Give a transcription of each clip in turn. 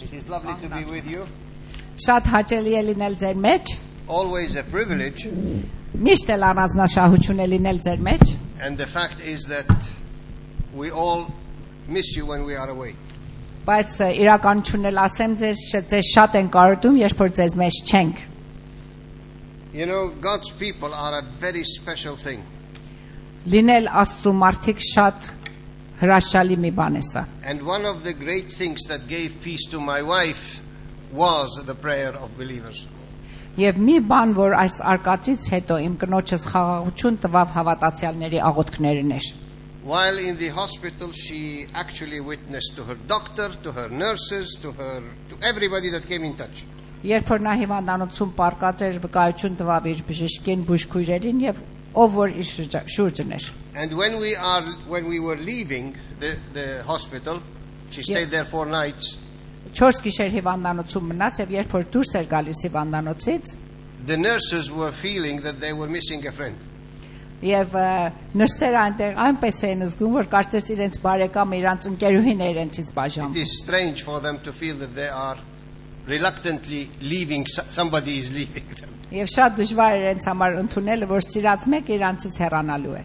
It is lovely to be with you. Շատ հաճելի է լինել ձեր մեջ, Always a privilege. միշտ էլ առանձնաշահություն է լինել ձեր մեջ, And the fact is that we all miss you when we are away. բայց իրականությունն էլ ասեմ ձեզ շատ են կարոտում, երբ որ ձեզ մեջ չենք։ You know, God's people are a very special thing. Լինել Աստծո մարդիկ շատ հրաշալի մի բան է սա։ And one of the great things that gave peace to my wife was the prayer of believers. Եվ մի բան, որ այս արկածից հետո իմ կնոջս խաղաղություն տվավ հավատացյալների աղոթքներն էր։ While in the hospital, she actually witnessed to her doctor, to her nurses, to everybody that came in touch. Երբ որ նա հիվանդանոցում պարկած էր, վկայություն տվավ իր բժշկին, բուժքույրերին եւ ով որ իր շուրջն էր։ And when we were leaving the hospital, she stayed there 4 nights. 4 գիշեր հիվանդանոցում մնաց եւ երբ որ դուրս էր գալիս հիվանդանոցից, The nurses were feeling that they were missing a friend. եւ նրսերը այնտեղ այնպես էին զգում, որ կարծես իրենց բարեկամը իրանց ընկերուհին է իրենցից բաժանում։ It is strange for them to feel that they are reluctantly leaving, somebody is leaving them. Եվ շատ դժվար է իրենց համար ընդունելը, որ սիրած մեկը իրանցից հեռանալու է։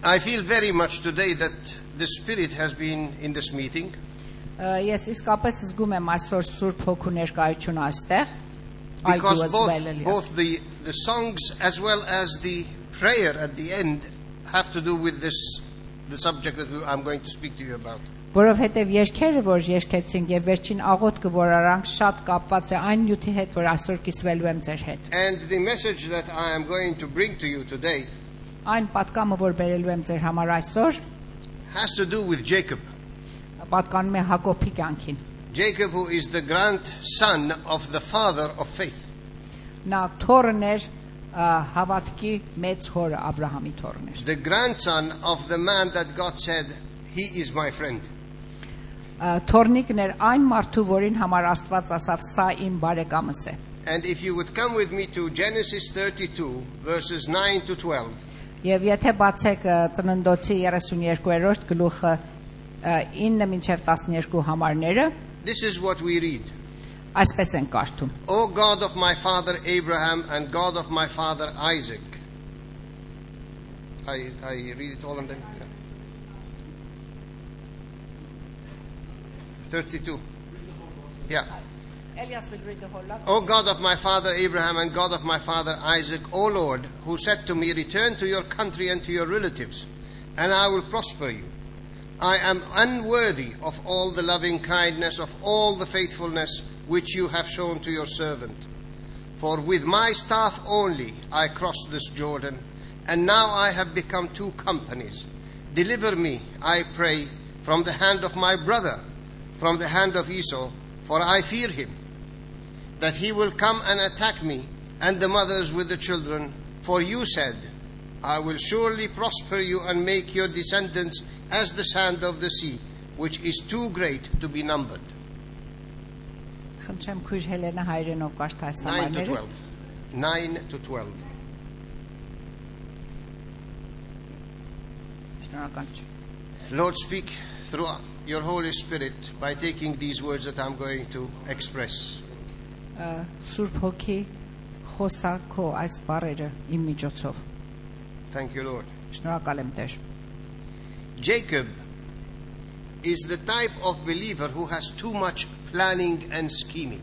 I feel very much today that the Spirit has been in this meeting. Ես իսկապես զգում եմ այսօր Սուրբ Հոգու ներկայությունը այստեղ, Because both the songs as well as the prayer at the end have to do with the subject that I'm going to speak to you about. Որովհետև երգերը, որ երգեցինք եւ վերջին աղոթքը, որ արանք, շատ կապված է այն նյութի հետ, որ այսօր կիսվելու եմ ձեր հետ։ And the message that I am going to bring to you today Այն պատկամը, որ բերելու եմ ձեր համար այսօր, has to do with Jacob. պատկանում է Հակոբի կյանքին։ Jacob, who is the grandson of the father of faith. Նա թորն էր հավատքի մեծ հորը Աբրահամի թորն էր։ The grandson of the man that God said, he is my friend. Թորնիկն էր այն մարդու, որին համար Աստված ասավ, սա իմ բարեկամս է։ And if you would come with me to Genesis 32 verses 9 to 12. Եվ եթե բացեք Ծննդոցի 32-րդ գլուխը 9 մինչև 12 համարները, This is what we read. Այսպես են կարդում. O God of my father Abraham and God of my father Isaac. I read it all and then 32. Yeah. Elias will read the whole lot. O God of my father Abraham and God of my father Isaac, O Lord, who said to me, return to your country and to your relatives, and I will prosper you. I am unworthy of all the loving kindness, of all the faithfulness which you have shown to your servant. For with my staff only I crossed this Jordan, and now I have become 2 companies. Deliver me, I pray, from the hand of my brother, from the hand of Esau, for I fear him, that he will come and attack me, and the mothers with the children. For you said, I will surely prosper you and make your descendants as the sand of the sea, which is too great to be numbered. Խնդրեմ քույր Հելենա հայրենով կարդա այս 9 to համարները։ 12. 9 to 12. Շնորհակալություն։ Lord, speak through your Holy Spirit by taking these words that I'm going to express. Սուրբ Հոգի խոսա քո այս բառերը իմ միջոցով։ Thank you, Lord. Շնորհակալ եմ Տեր։ Jacob is the type of believer who has too much planning and scheming.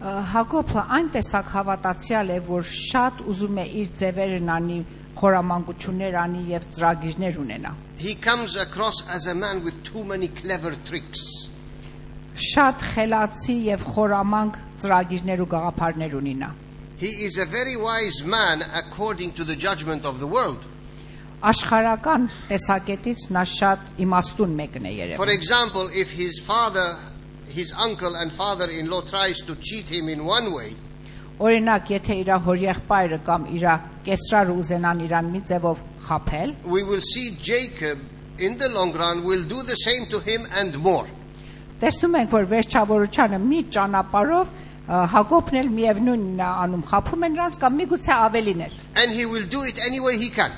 Հակոբը այն տեսակ հավատացյալ է, որ շատ ուզում է իր ձևերն անի, խորամանկություններ անի եւ ծրագիրներ ունենա։ He comes across as a man with too many clever tricks. Շատ խելացի եւ խորամանկ ծրագիրներ ու գաղափարներ ունի նա։ He is a very wise man according to the judgment of the world. Աշխարհական տեսակետից նա շատ իմաստուն մեկն է երևում։ For example, if his uncle and father-in-law tries to cheat him in one way, Օրինակ, եթե իր հորեղբայրը կամ իր կեսրարը ուզենան իրան մի ձևով խաբել, we will see Jacob in the long run will do the same to him and more. տեսնում ենք, որ վերջավորությանը մի ճանապարհով Հակոբն էլ միևնույնն է անում, խաբում են նրանց կամ միգուցե ավելին էլ։ And he will do it any way he can.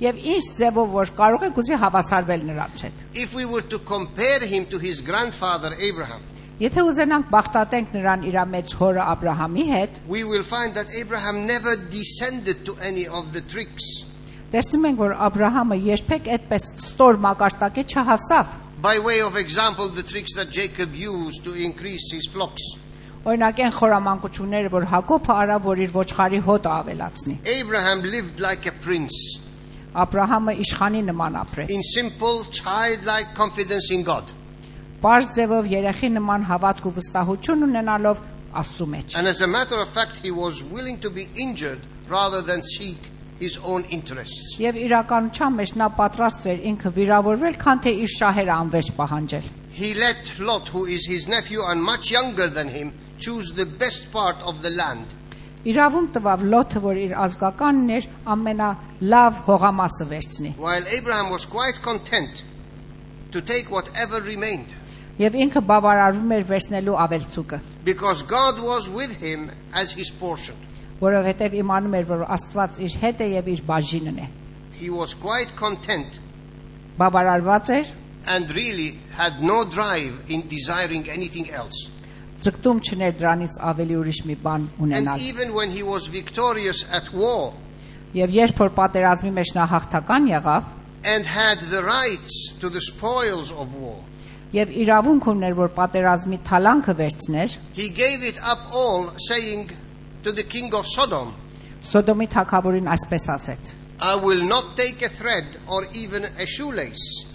Եվ ինչ ձևով որ կարող եք ուզի հավասարվել նրանց հետ։ If we were to compare him to his grandfather Abraham, Եթե ուզենանք բախտատենք նրան իր մեծ հորը Աբրահամի հետ, we will find that Abraham never descended to any of the tricks. տեսնում ենք որ Աբրահամը երբեք այդպես ստոր մակարդակի չհասավ։ By way of example, the tricks that Jacob used to increase his flocks. Օրինակ այն խորամանկությունները որ Հակոբը արավ որ իր ոչխարի հոտը ավելացնի։ Abraham lived like a prince, Աբրահամը իշխանի նման ապրեց։ in simple, childlike confidence in God. Պարզ ձևով երեխի նման հավատք ու վստահություն ունենալով Աստծու մեջ։ And as a matter of fact, he was willing to be injured rather than seek his own interests. Եվ իրականության մեջ նա պատրաստ էր ինքը վիրավորվել, քան թե իր շահերը անվերջ պահանջել։ He let Lot, who is his nephew and much younger than him, choose the best part of the land. Իրավունք տվավ Լոթը, որ իր ազգականն էր, ամենալավ հողամասը վերցնի։ While Abraham was quite content to take whatever remained, Եվ ինքը բավարարվում էր վերցնելու ավելցուկը, because God was with him as his portion. որովհետև իմանում էր, որ Աստված իր հետ է եւ իր բաժինն է։ He was quite content Բավարարված էր, and really had no drive in desiring anything else. ձգտում չներ դրանից ավելի ուրիշ մի բան And ունենալ։ even when he was victorious at war Եվ երբ որ պատերազմի մեջ նա հաղթական եղավ, and had the rights to the spoils of war, եւ իրավունք ուներ, որ պատերազմի թալանքը վերցներ, he gave it up all, saying to the king of Sodom, Սոդոմի թագավորին այսպես ասեց. I will not take a thread or even a shoelace.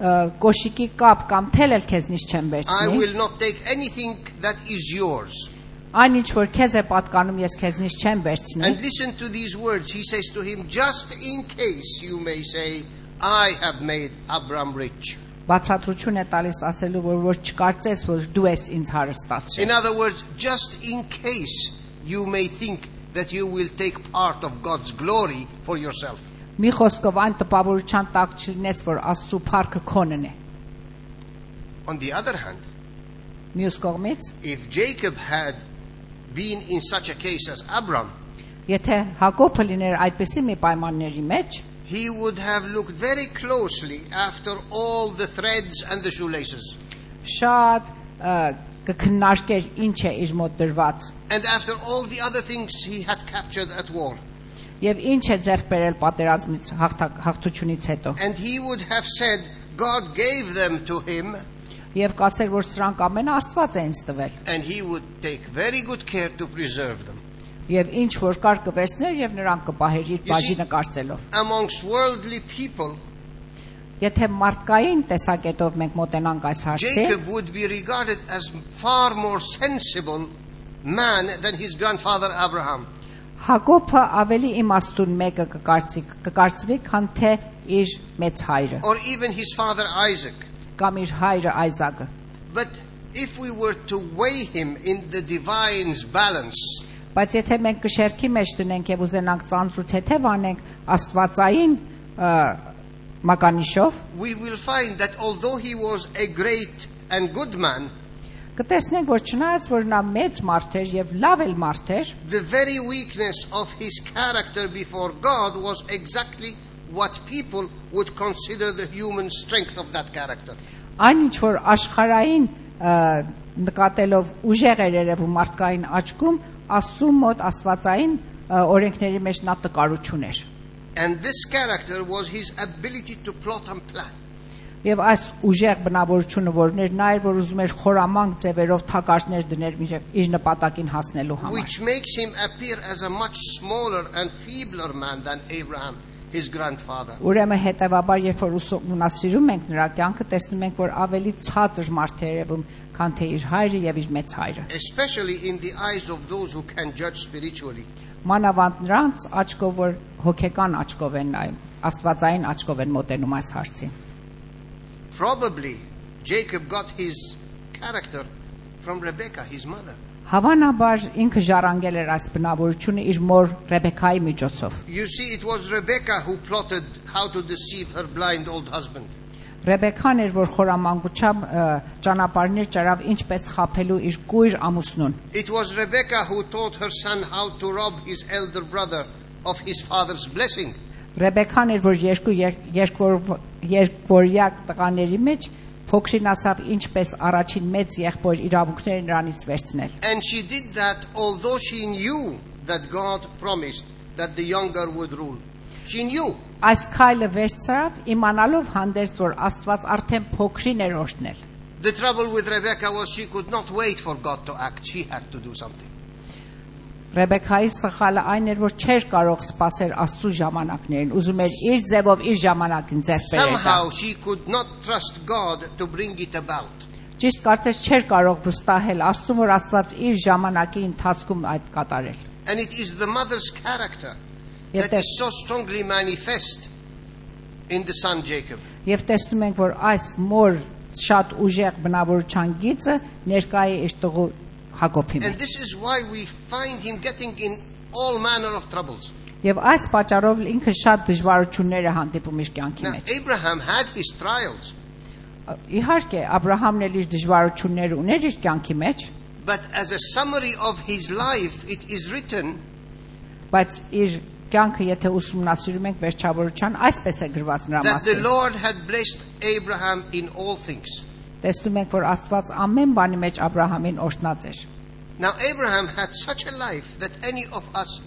Կոշիկի կապ կամ թել էլ քեզնից չեմ I վերցնի։ will not take anything that is yours. Այն ինչ որ քեզ է պատկանում, ես քեզնից չեմ վերցնի։ And listen to these words. He says to him, just in case you may say, I have made Abram rich. Բացատրություն է տալիս ասելու, որ չկարծես, որ դու ես ինձ հարստացրել։ In other words, just in case you may think that you will take part of God's glory for yourself. Մի խոսքով այն տպավորության տակ չլինես, որ Աստծո փառքը քոնն է։ On the other hand, Մյուս կողմից, if Jacob had been in such a case as Abram, եթե Հակոբը լիներ այդպիսի մի պայմանների մեջ, he would have looked very closely after all the threads and the shoelaces. շատ կքննարկեր ինչ է իր մոտ դրված And after all the other things he had captured at war. եւ ինչ է ձեռք բերել պատերազմից հաղթությունից հետո։ And he would have said, God gave them to him, Եվ կասեր, որ սրանք ամենը Աստված է ինձ տվել։ and he would take very good care to preserve them. Եվ ինչ որ կար կվերցներ եւ նրանք կպահեր իր բաժինը կարծելով։ Amongst worldly people, Եթե մարդկային տեսակետով մենք մոտենանք այս հարցին, Jacob would be regarded as far more sensible man than his grandfather Abraham. Հակոբը ավելի իմաստուն մեկը կկարծվի, քան թե իր մեծ հայրը Or even his father Isaac. կամ իր հայրը Այզակը։ But if we were to weigh him in the divine's balance, Բայց եթե մենք կշերքի մեջ դնենք եւ ուզենանք ծանր ու թեթև անենք Աստվածային մականիշով, we will find that although he was a great and good man, կտեսնենք, որ չնայած որ նա մեծ մարդ էր եւ լավ էլ մարդ էր, the very weakness of his character before God was exactly what people would consider the human strength of that character. Այն ինչ որ աշխարհային նկատելով ուժեղ էր երևում մարդկային աչքում, Աստծու մոտ աստվածային օրենքների մեջ նա տկարություն էր։ And this character was his ability to plot and plan. Եվ այս ուժեղ բնավորությունը որներ նա էր, որ ուզում էր խորամանկ ձևերով թակարդներ դներ իր նպատակին հասնելու համար։ Which makes him appear as a much smaller and feebler man than Abraham, his grandfather. Ուրեմն հետևաբար երբ որ ուսումնասիրում ենք նրա կյանքը, տեսնում ենք, որ ավելի ցածր մարդ է երևում, քան թե իր հայրը եւ իր մեծ հայրը։ Especially in the eyes of those who can judge spiritually. Մանավանդ նրանց աչքով, որ հոգեկան աչքով են նայում, աստվածային աչքով են մոտենում այս հարցին։ Probably Jacob got his character from Rebekah, his mother. Հավանաբար ինքը ժառանգել էր այս բնավորությունը իր մոր Ռեբեկայի միջոցով։ You see, it was Rebekah who plotted how to deceive her blind old husband. Ռեբեկան էր, որ խորամանկությամբ ճանապարհներ ճարավ ինչպես խափելու իր կույր ամուսնուն։ It was Rebekah who taught her son how to rob his elder brother of his father's blessing. Ռեբեկան էր, որ երկորյակ տղաների մեջ փոքրին ասավ ինչպես առաջին մեծ եղբոր իրավունքները նրանից վերցնել։ And she did that although she knew that God promised that the younger would rule. She knew. Այս քայլը վերցրավ իմանալով հանդերձ որ Աստված արդեն փոքրին էր օրհնել։ The trouble with Rebecca was she could not wait for God to act. She had to do something. Ռեբեկայի սխալը այն էր, որ չէր կարող սպասել Աստծո ժամանակներին, ուզում էր իր ձևով իր ժամանակին ձեռք բերել։ Somehow she could not trust God to bring it about. Ճիշտ կարծես չէր կարող վստահել Աստծուն, որ Աստված իր ժամանակի ընթացքում այդ կատարել։ And it is the mother's character that is so strongly manifest in the son Jacob. Եվ տեսնում ենք, որ այս մոր շատ ուժեղ բնավորության գիծը ներկա է իր տղու Հակոբի And մեջ։ this is why we find him getting in all manner of troubles. Եվ այս պատճառով ինքը շատ դժվարություններ է հանդիպում իր կյանքի Now, մեջ։ Abraham had his trials, Իհարկե, Աբրահամն էլ իր դժվարություններ ուներ իր կյանքի մեջ, but as a summary of his life, it is written բայց իր կյանքը եթե ուսումնասիրում ենք վերջավորության, այսպես է գրված նրա that the մասին։ Lord had blessed Abraham in all things. Տեսնում ենք, որ Աստված ամեն բանի մեջ Աբրահամին օրհնած էր։ Now, Abraham had such a life that any of us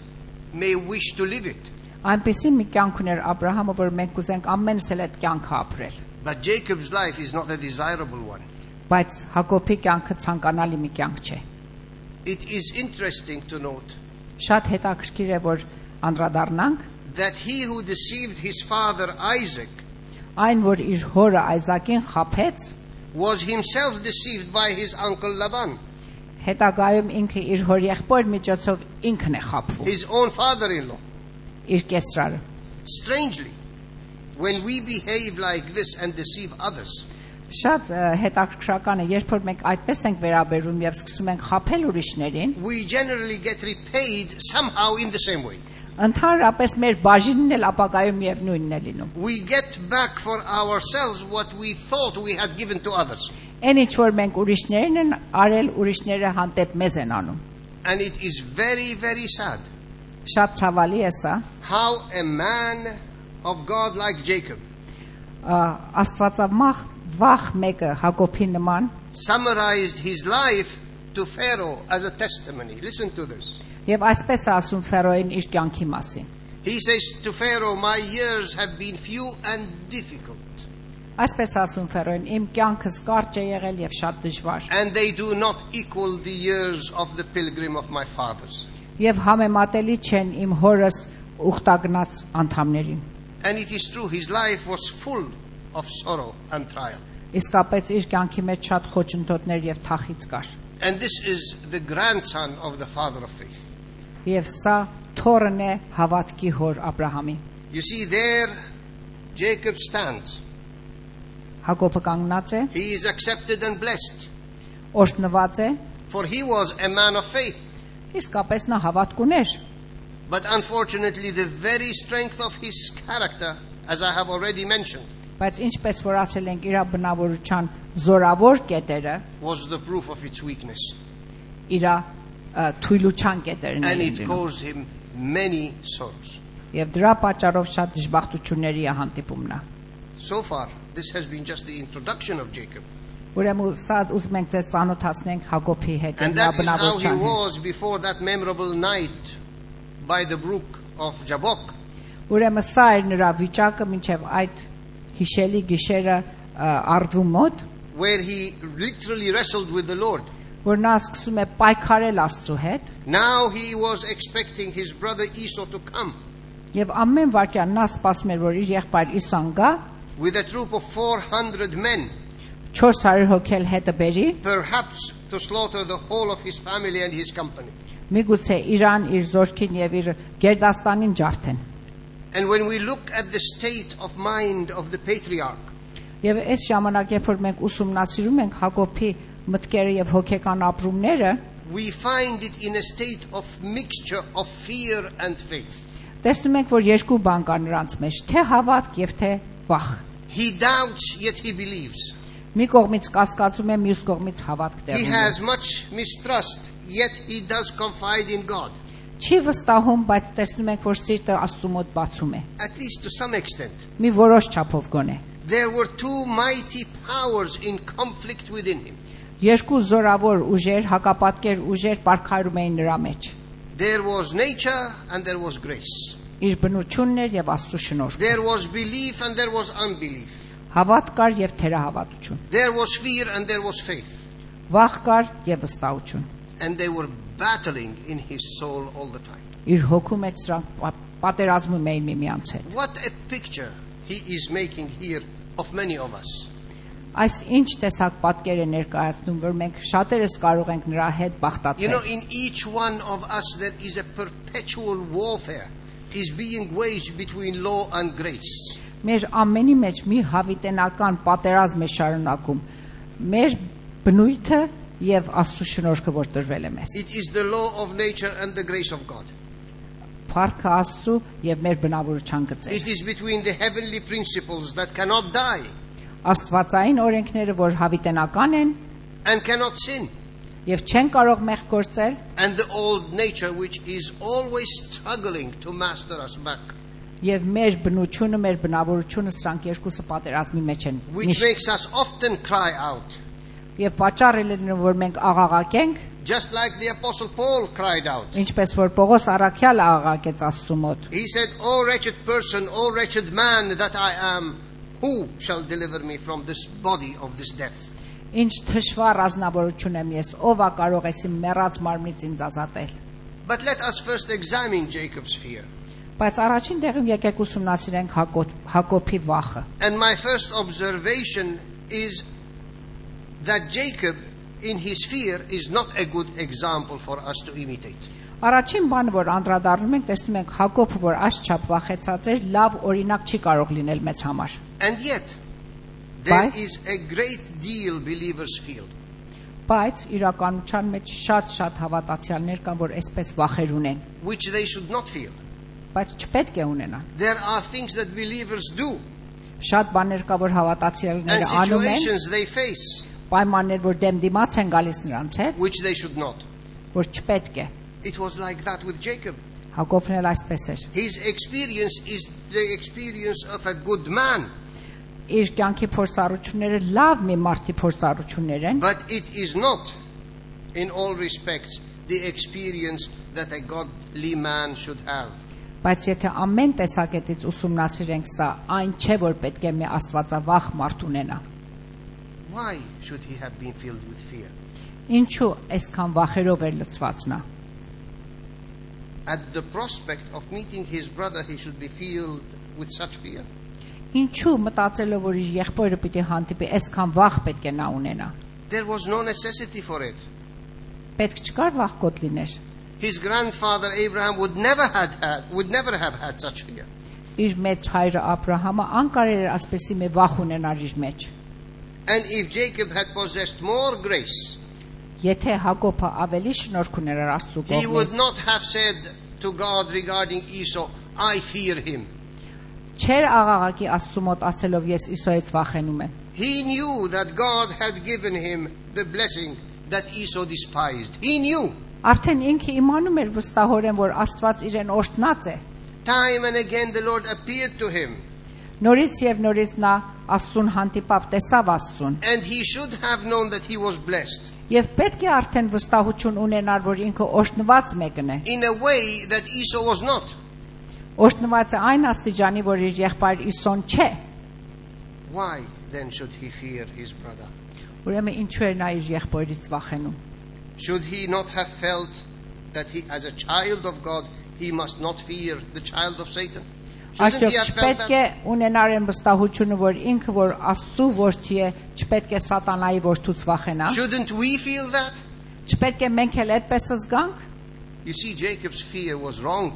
may wish to live it. Այնպեսի մի կյանք ուներ Աբրահամը, որ մենք կուզենք ամենս էլ այդ կյանքը ապրել։ But Jacob's life is not a desirable one. Բայց Հակոբի կյանքը ցանկանալի մի կյանք չէ։ It is interesting to note Շատ հետաքրքիր է, որ անդրադառնանք that he who deceived his father Isaac այն, որ իր հորը Այզակին խաբեց, was himself deceived by his uncle Laban, հետագայում ինքը իր հորեղբոր միջոցով ինքն է խաբվում, his own father-in-law. իր կեսրարը։ Strangely, when we behave like this and deceive others, Շատ հետաքրքրական է, երբ որ մենք այդպես ենք վերաբերվում եւ սկսում ենք խաբել ուրիշներին, we generally get repaid somehow in the same way. ընդհանրապես մեր բաժինն էլ ապագայում եւ նույնն է լինում։ We get back for ourselves what we thought we had given to others. Այն ինչ որ մենք ուրիշներին են արել, ուրիշները հանդեպ մեզ են անում։ And it is very, very sad Շատ ցավալի է սա։ how a man of God like Jacob Աստվածամախ վախ մեկը Հակոբի նման summarized his life to Pharaoh as a testimony. Listen to this. եւ այսպես է ասում Ֆերոյին իր կյանքի մասին։ He says to Pharaoh, my years have been few and difficult, Այսպես ասում Ֆերոյին, իմ կյանքս կարճ է եղել եւ շատ դժվար։ and they do not equal the years of the pilgrim of my fathers. Եվ համեմատելի չեն իմ հորս ուխտագնաց անդամներին։ And it is true, his life was full of sorrow and trial. Իսկապես իր կյանքի մեջ շատ խոչընդոտներ եւ թախից կար։ And this is the grandson of the father of faith. Եվ սա թորն է հավատքի հոր Աբրահամի։ You see, there Jacob stands. Հակոբը կանգնած է, He is accepted and blessed, օրհնված է, for he was a man of faith. իսկապես նա հավատք ուներ։ But unfortunately, the very strength of his character, as I have already mentioned, Բայց ինչպես որ ասել ենք, իր բնավորության զորավոր կետերը, was the proof of its weakness. իր թույլության կետերն And են it լինում։ caused him many sorrows. Եվ դրա պատճառով շատ դժբախտությունների է հանդիպում նա։ So far, this has been just the introduction of Jacob. Ուրեմն սա ուզում ենք ձեզ ծանոթացնենք Հակոբի հետ And նրա that is how he բնավորության հետ։ was before that memorable night by the brook of Jabbok. Ուրեմն սա էր նրա վիճակը մինչև այդ հիշելի գիշերը Արդու մոտ, Where he literally wrestled with the Lord. որ նա սկսում է պայքարել Աստծո հետ, Now he was expecting his brother Esau to come եւ ամեն վարքյան նա սպասում էր, որ իր եղբայր Իսան գա, with a troop of 400 men, 400 հոգել հետը բերի, perhaps to slaughter the whole of his family and his company. միգուցե Իրան իր զորքին եւ իր գերդաստանին ջարդեն։ And when we look at the state of mind of the patriarch, Եվ այս ժամանակ, երբ որ մենք ուսումնասիրում ենք Հակոբի մտքերը եւ հոգեկան ապրումները, we find it in a state of mixture of fear and faith. տեսնում ենք, որ երկու բան կա նրանց մեջ, թե հավատք եւ թե վախ։ He doubts, yet he believes. Մի կողմից կասկածում է, մյուս կողմից հավատք He տեղում է։ has much mistrust, yet he does confide in God. Չի վստահում, բայց տեսնում ենք, որ սիրտը Աստծու մոտ բացում է։ at least to some extent. Մի որոշ չափով գոնե։ There were two mighty powers in conflict within him. Երկու զորավոր ուժեր, հակապատկեր ուժեր պարքարում էին նրա մեջ։ There was nature and there was grace. Իր բնությունն էր եւ Աստծո շնորհքը։ There was belief and there was unbelief. Հավատ կար եւ թերահավատություն։ There was fear and there was faith. Վախ կար եւ վստահություն։ And they were battling in his soul all the time. Իր հոգու մեջ սրանք պատերազմում էին միմյանց հետ։ What a picture he is making here of many of us. Այս ինչ տեսակ պատկեր է ներկայացնում, որ մենք շատերս կարող ենք նրա հետ You know, բախտացնել։ in each one of us there is a perpetual warfare is being waged between law and grace. Մեր ամենի մեջ մի հավիտենական պատերազմ է շարունակում։ Մեր բնույթը եւ Աստծո շնորհքը, որ տրվել է մեզ։ It is the law of nature and the grace of God. Փառքը Աստծո եւ մեր բնավորության գծեր։ It is between the heavenly principles that cannot die Աստվածային օրենքները, որ հավիտենական են and cannot sin, եւ չեն կարող մեղք գործել, and the old nature which is always struggling to master us back, եւ մեր բնությունը, մեր բնավորությունը սրանք երկուսը պատերազմի մեջ են։ which makes us often cry out, Եվ պատճառը լինում, որ մենք աղաղակենք, just like the Apostle Paul cried out. ինչպես որ Պողոս առաքյալը աղաղակեց Աստծու մոտ։ He said, "O wretched person, O wretched man that I am, who shall deliver me from this body of this death?" Ինչ թշվառ ազնվորություն եմ ես, ով է կարող էս իմ մեռած մարմնից ինձ ազատել։ But let us first examine Jacob's fear. Բայց առաջին տեղում եկեք ուսումնասիրենք Հակոբի վախը։ And my first observation is that Jacob, in his fear, is not a good example for us to imitate. Առաջին բանը, որ անդրադառնում ենք, տեսնում ենք Հակոբը, որ այսչափ վախեցած էր, լավ օրինակ չի կարող լինել մեզ համար։ And yet, there Why? is a great deal believers feel. Բայց իրականության մեջ շատ հավատացյալներ կան, որ այսպես վախեր ունեն, Which they should not feel. բայց չպետք է ունենան։ There are things that believers do Շատ բաներ կա, որ and հավատացյալները անում են, situations they face պայմաններ, որ դեմ դիմաց են գալիս նրանց հետ, which they should not. որ չպետք է։ It was like that with Jacob. Հակոբն էլ այսպես էր։ His experience is the experience of a good man, Իր կյանքի փորձառությունները լավ մի մարդի փորձառություններ են, but it is not, in all respects, the experience that a godly man should have. բայց եթե ամեն տեսակետից ուսումնասիրենք սա, այն չէ, որ պետք է մի աստվածավախ մարդ ունենա։ Why should he have been filled with fear? Ինչու այսքան վախերով էր լցված նա։ At the prospect of meeting his brother, he should be filled with such fear. Ինչու մտածելով, որ իր եղբայրը պիտի հանդիպի, այսքան վախ պետք է նա ունենա։ There was no necessity for it. Պետք չկար վախկոտ լիներ։ His grandfather Abraham would never have had such fear. Իր մեծ հայրը Աբրահամը անկարել էր ասպեսի մի վախ ունենար իր մեջ։ And if Jacob had possessed more grace, Եթե Հակոբը ավելի շնորհք ուներ Աստծո he would կողմից, not have said to God regarding Esau, "I fear him." չէր աղաղակի Աստծո մոտ ասելով ես Իսոյից վախենում եմ։ He knew that God had given him the blessing that Esau despised. He knew. Արդեն ինքը իմանում էր վստահորեն, որ Աստված իրեն օրհնած է։ Time and again the Lord appeared to him, Նորից եւ նորից նա Աստծուն հանդիպավ, տեսավ Աստծուն, and he should have known that he was blessed եւ պետք է արդեն վստահություն ունենար, որ ինքը օրհնված մեկն է։ in a way that Esau was not. Օրհնված է այն աստիճանի, որ իր եղբայր Իսոն չէ։ Why then should he fear his brother? Ուրեմն ինչու էր նա իր եղբայրից վախենում։ Should he not have felt that he, as a child of God, he must not fear the child of Satan? Shouldn't he Արդյոք have felt չպետք է that? ունենար այն վստահությունը, որ ինքը որ Աստծո որդի է, չպետք է սատանայի որդուց վախենա։ Shouldn't we feel that? Չպետք է մենք էլ այդպես զգանք։ You see, Jacob's fear was wrong,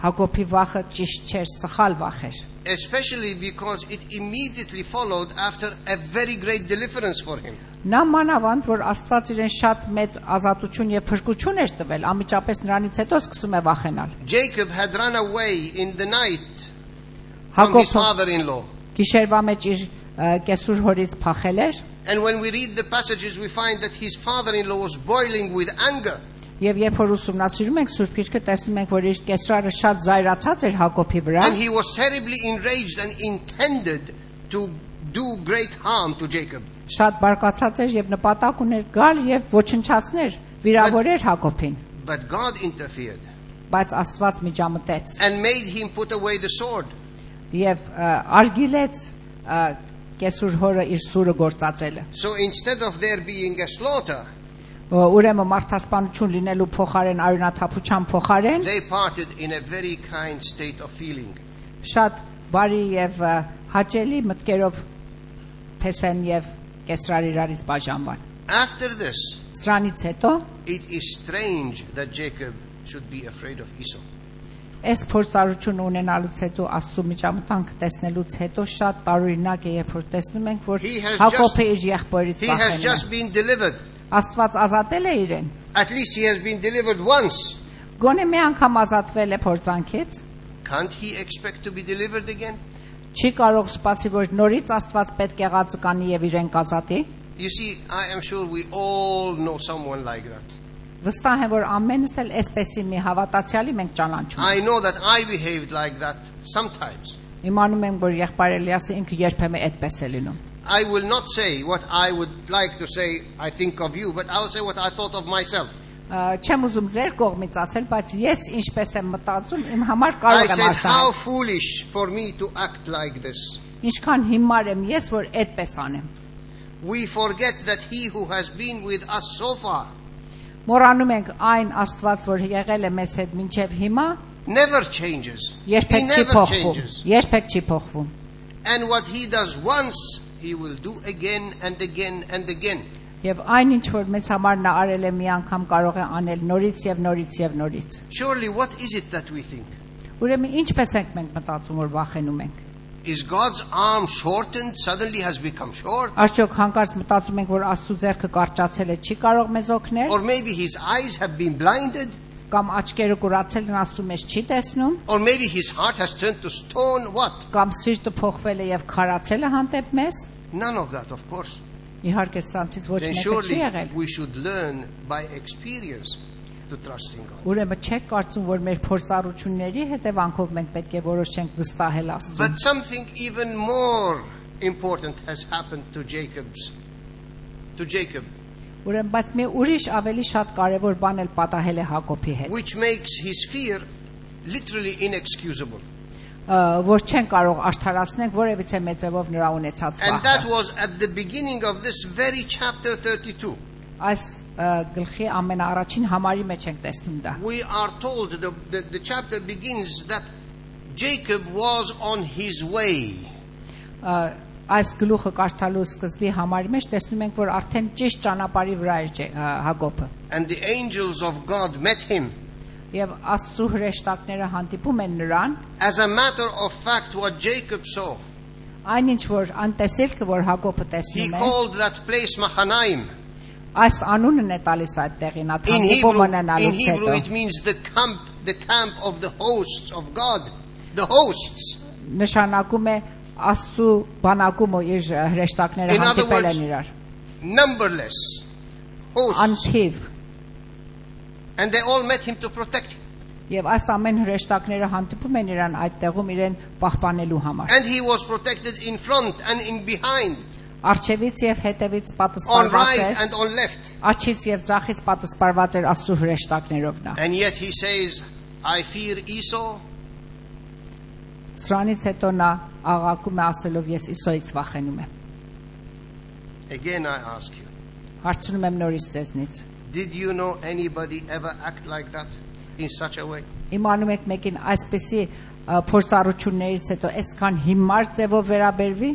Հակոբի վախը ճիշտ չէր, սխալ վախ էր։ especially because it immediately followed after a very great deliverance for him. Նա մանավանդ, որ Աստված իրեն շատ մեծ ազատություն եւ փրկություն էր տվել, անմիջապես նրանից հետո սկսում է վախենալ։ Jacob had run away in the night from his Հակոբը father-in-law. գիշերվա մեջ իր կեսուր հորից փախել էր, And when we read the passages, we find that his father-in-law was boiling with anger. Եվ երբ որ ուսումնասիրում ենք Սուրբ Գիրքը, տեսնում ենք, որ իր կեսրարը շատ զայրացած էր Հակոբի վրա, And he was terribly enraged and intended to do great harm to Jacob. շատ բարկացած էր եւ նպատակ ուներ գալ եւ ոչնչացներ, վիրավորեր Հակոբին, But God interfered բայց Աստված միջամտեց and made him put away the sword. եւ արգիլեց կեսուր հորը իր սուրը գործածելը։ So instead of there being a slaughter, Ուրեմն մարդասպանություն լինելու փոխարեն արյունաթափության փոխարեն they parted in a very kind state of feeling. շատ բարի եւ հաճելի մտքերով Փեսեն եւ Կեսրար իրարից բաժանվան։ After this, Սրանից հետո it is strange that Jacob should be afraid of Esau. այս փորձառություն ունենալուց հետո Աստծո միջամտանք տեսնելուց հետո շատ տարօրինակ է, երբ որ տեսնում ենք, որ He has Հակոբը իր եղբորից He has վախենում just է։ been delivered. Աստված ազատել է իրեն։ At least he has been delivered once. Գոնե մի անգամ ազատվել է փորձանքից, Can't he expect to be delivered again? չի կարող սպասի, որ նորից Աստված պետք է ղացկանի եւ իրեն կազատի։ You see, I am sure we all know someone like that. Վստահ եմ, որ ամենս էլ այսպեսի մի հավատացյալի մենք ճանաչում I ենք։ know that I behaved like that sometimes. Իմանում եմ, որ եղբայր Էլիասը ինքը երբեմն այդպես է լինում։ I will not say what I would like to say, I think of you, but I will say what I thought of myself. Չեմ ուզում ձեր կողմից ասել, բայց ես ինչպես եմ մտածում, իմ համար I կարող եմ said, how արտահայտել։ foolish for me to act like this. Ինչքան հիմար եմ ես, որ այդպես անեմ։ We forget that he who has been with us so far Մոռանում ենք այն Աստված, որ եղել է մեզ հետ մինչև հիմա, never changes. He երբեք չի never փոխվում։ changes. Երբեք չի փոխվում։ And what he does once, he will do again and again and again. Եվ այն ինչ որ մեզ համար նա արել է մի անգամ կարող է անել նորից եւ նորից եւ նորից։ Surely, what is it that we think? Ուրեմն ինչպես ենք մենք մտածում, որ վախենում ենք։ Is God's arm shortened, suddenly has become short? Արդյոք հանկարծ մտածում ենք, որ Աստծո ձեռքը կարճացել է, չի կարող մեզ օգնել, Or maybe his eyes have been blinded? կամ աչքերը կուրացել են, Աստծո մեզ չի տեսնում, Or maybe his heart has turned to stone? What? կամ սիրտը փոխվել է եւ քարացել է հանդեպ մեզ։ None of that, of course. Իհարկե սրանցից ոչ Then մեկը չի surely եղել։ we should learn by experience to trust in God. Ուրեմն չեք կարծում, որ մեր փորձառությունների հետևանքով մենք պետք է որոշենք վստահել Աստծուն։ But something even more important has happened to Jacob. Ուրեմն բայց մի ուրիշ ավելի շատ կարևոր բան էլ պատահել է Հակոբի հետ, Which makes his fear literally inexcusable. Որ չեն կարող արդարացնել որևիցե մեծևով նրա ունեցած And that վախը։ was at the beginning of this very chapter 32. Այս գլխի ամենաառաջին համարի մեջ ենք տեսնում դա։ We are told, the chapter begins that Jacob was on his way. Այս գլուխը կարդալու սկզբի համարի մեջ տեսնում ենք, որ արդեն ճիշտ ճանապարհի վրա էր Հակոբը։ And the angels of God met him. Եվ Աստծո հրեշտակները հանդիպում են նրան, As a matter of fact, what Jacob saw, այնինչ որ անտեսելքը որ Հակոբը he տեսնում է, called that place Mahanaim. այս անունն է տալիս այդ տեղին, In հանդիպումը Hebrew, ունենալուց հետո։ it means the camp of the hosts of God. The hosts. Նշանակում է Աստծո բանակումը իր հրեշտակները In other հանդիպել words, են իրար, numberless hosts. անթիվ, And they all met him to protect him. եւ այս ամեն հրեշտակները հանդիպում են իրան այդ տեղում իրեն պահպանելու համար։ And he was protected in front and in behind, Արջևից եւ հետևից on պատասպարված right էր, and on left. արջից եւ ձախից պատասպարված էր Աստծո հրեշտակներով նա։ And yet he says, I fear Esau. Սրանից հետո նա աղաղակում է ասելով ես Իսոյից վախենում եմ։ Again I ask you, Հարցնում եմ նորից ձեզնից։ did you know anybody ever act like that in such a way? Իմանում եք մեկին այսպեսի փորձառություններից հետո այսքան հիմար ձևով վերաբերվի։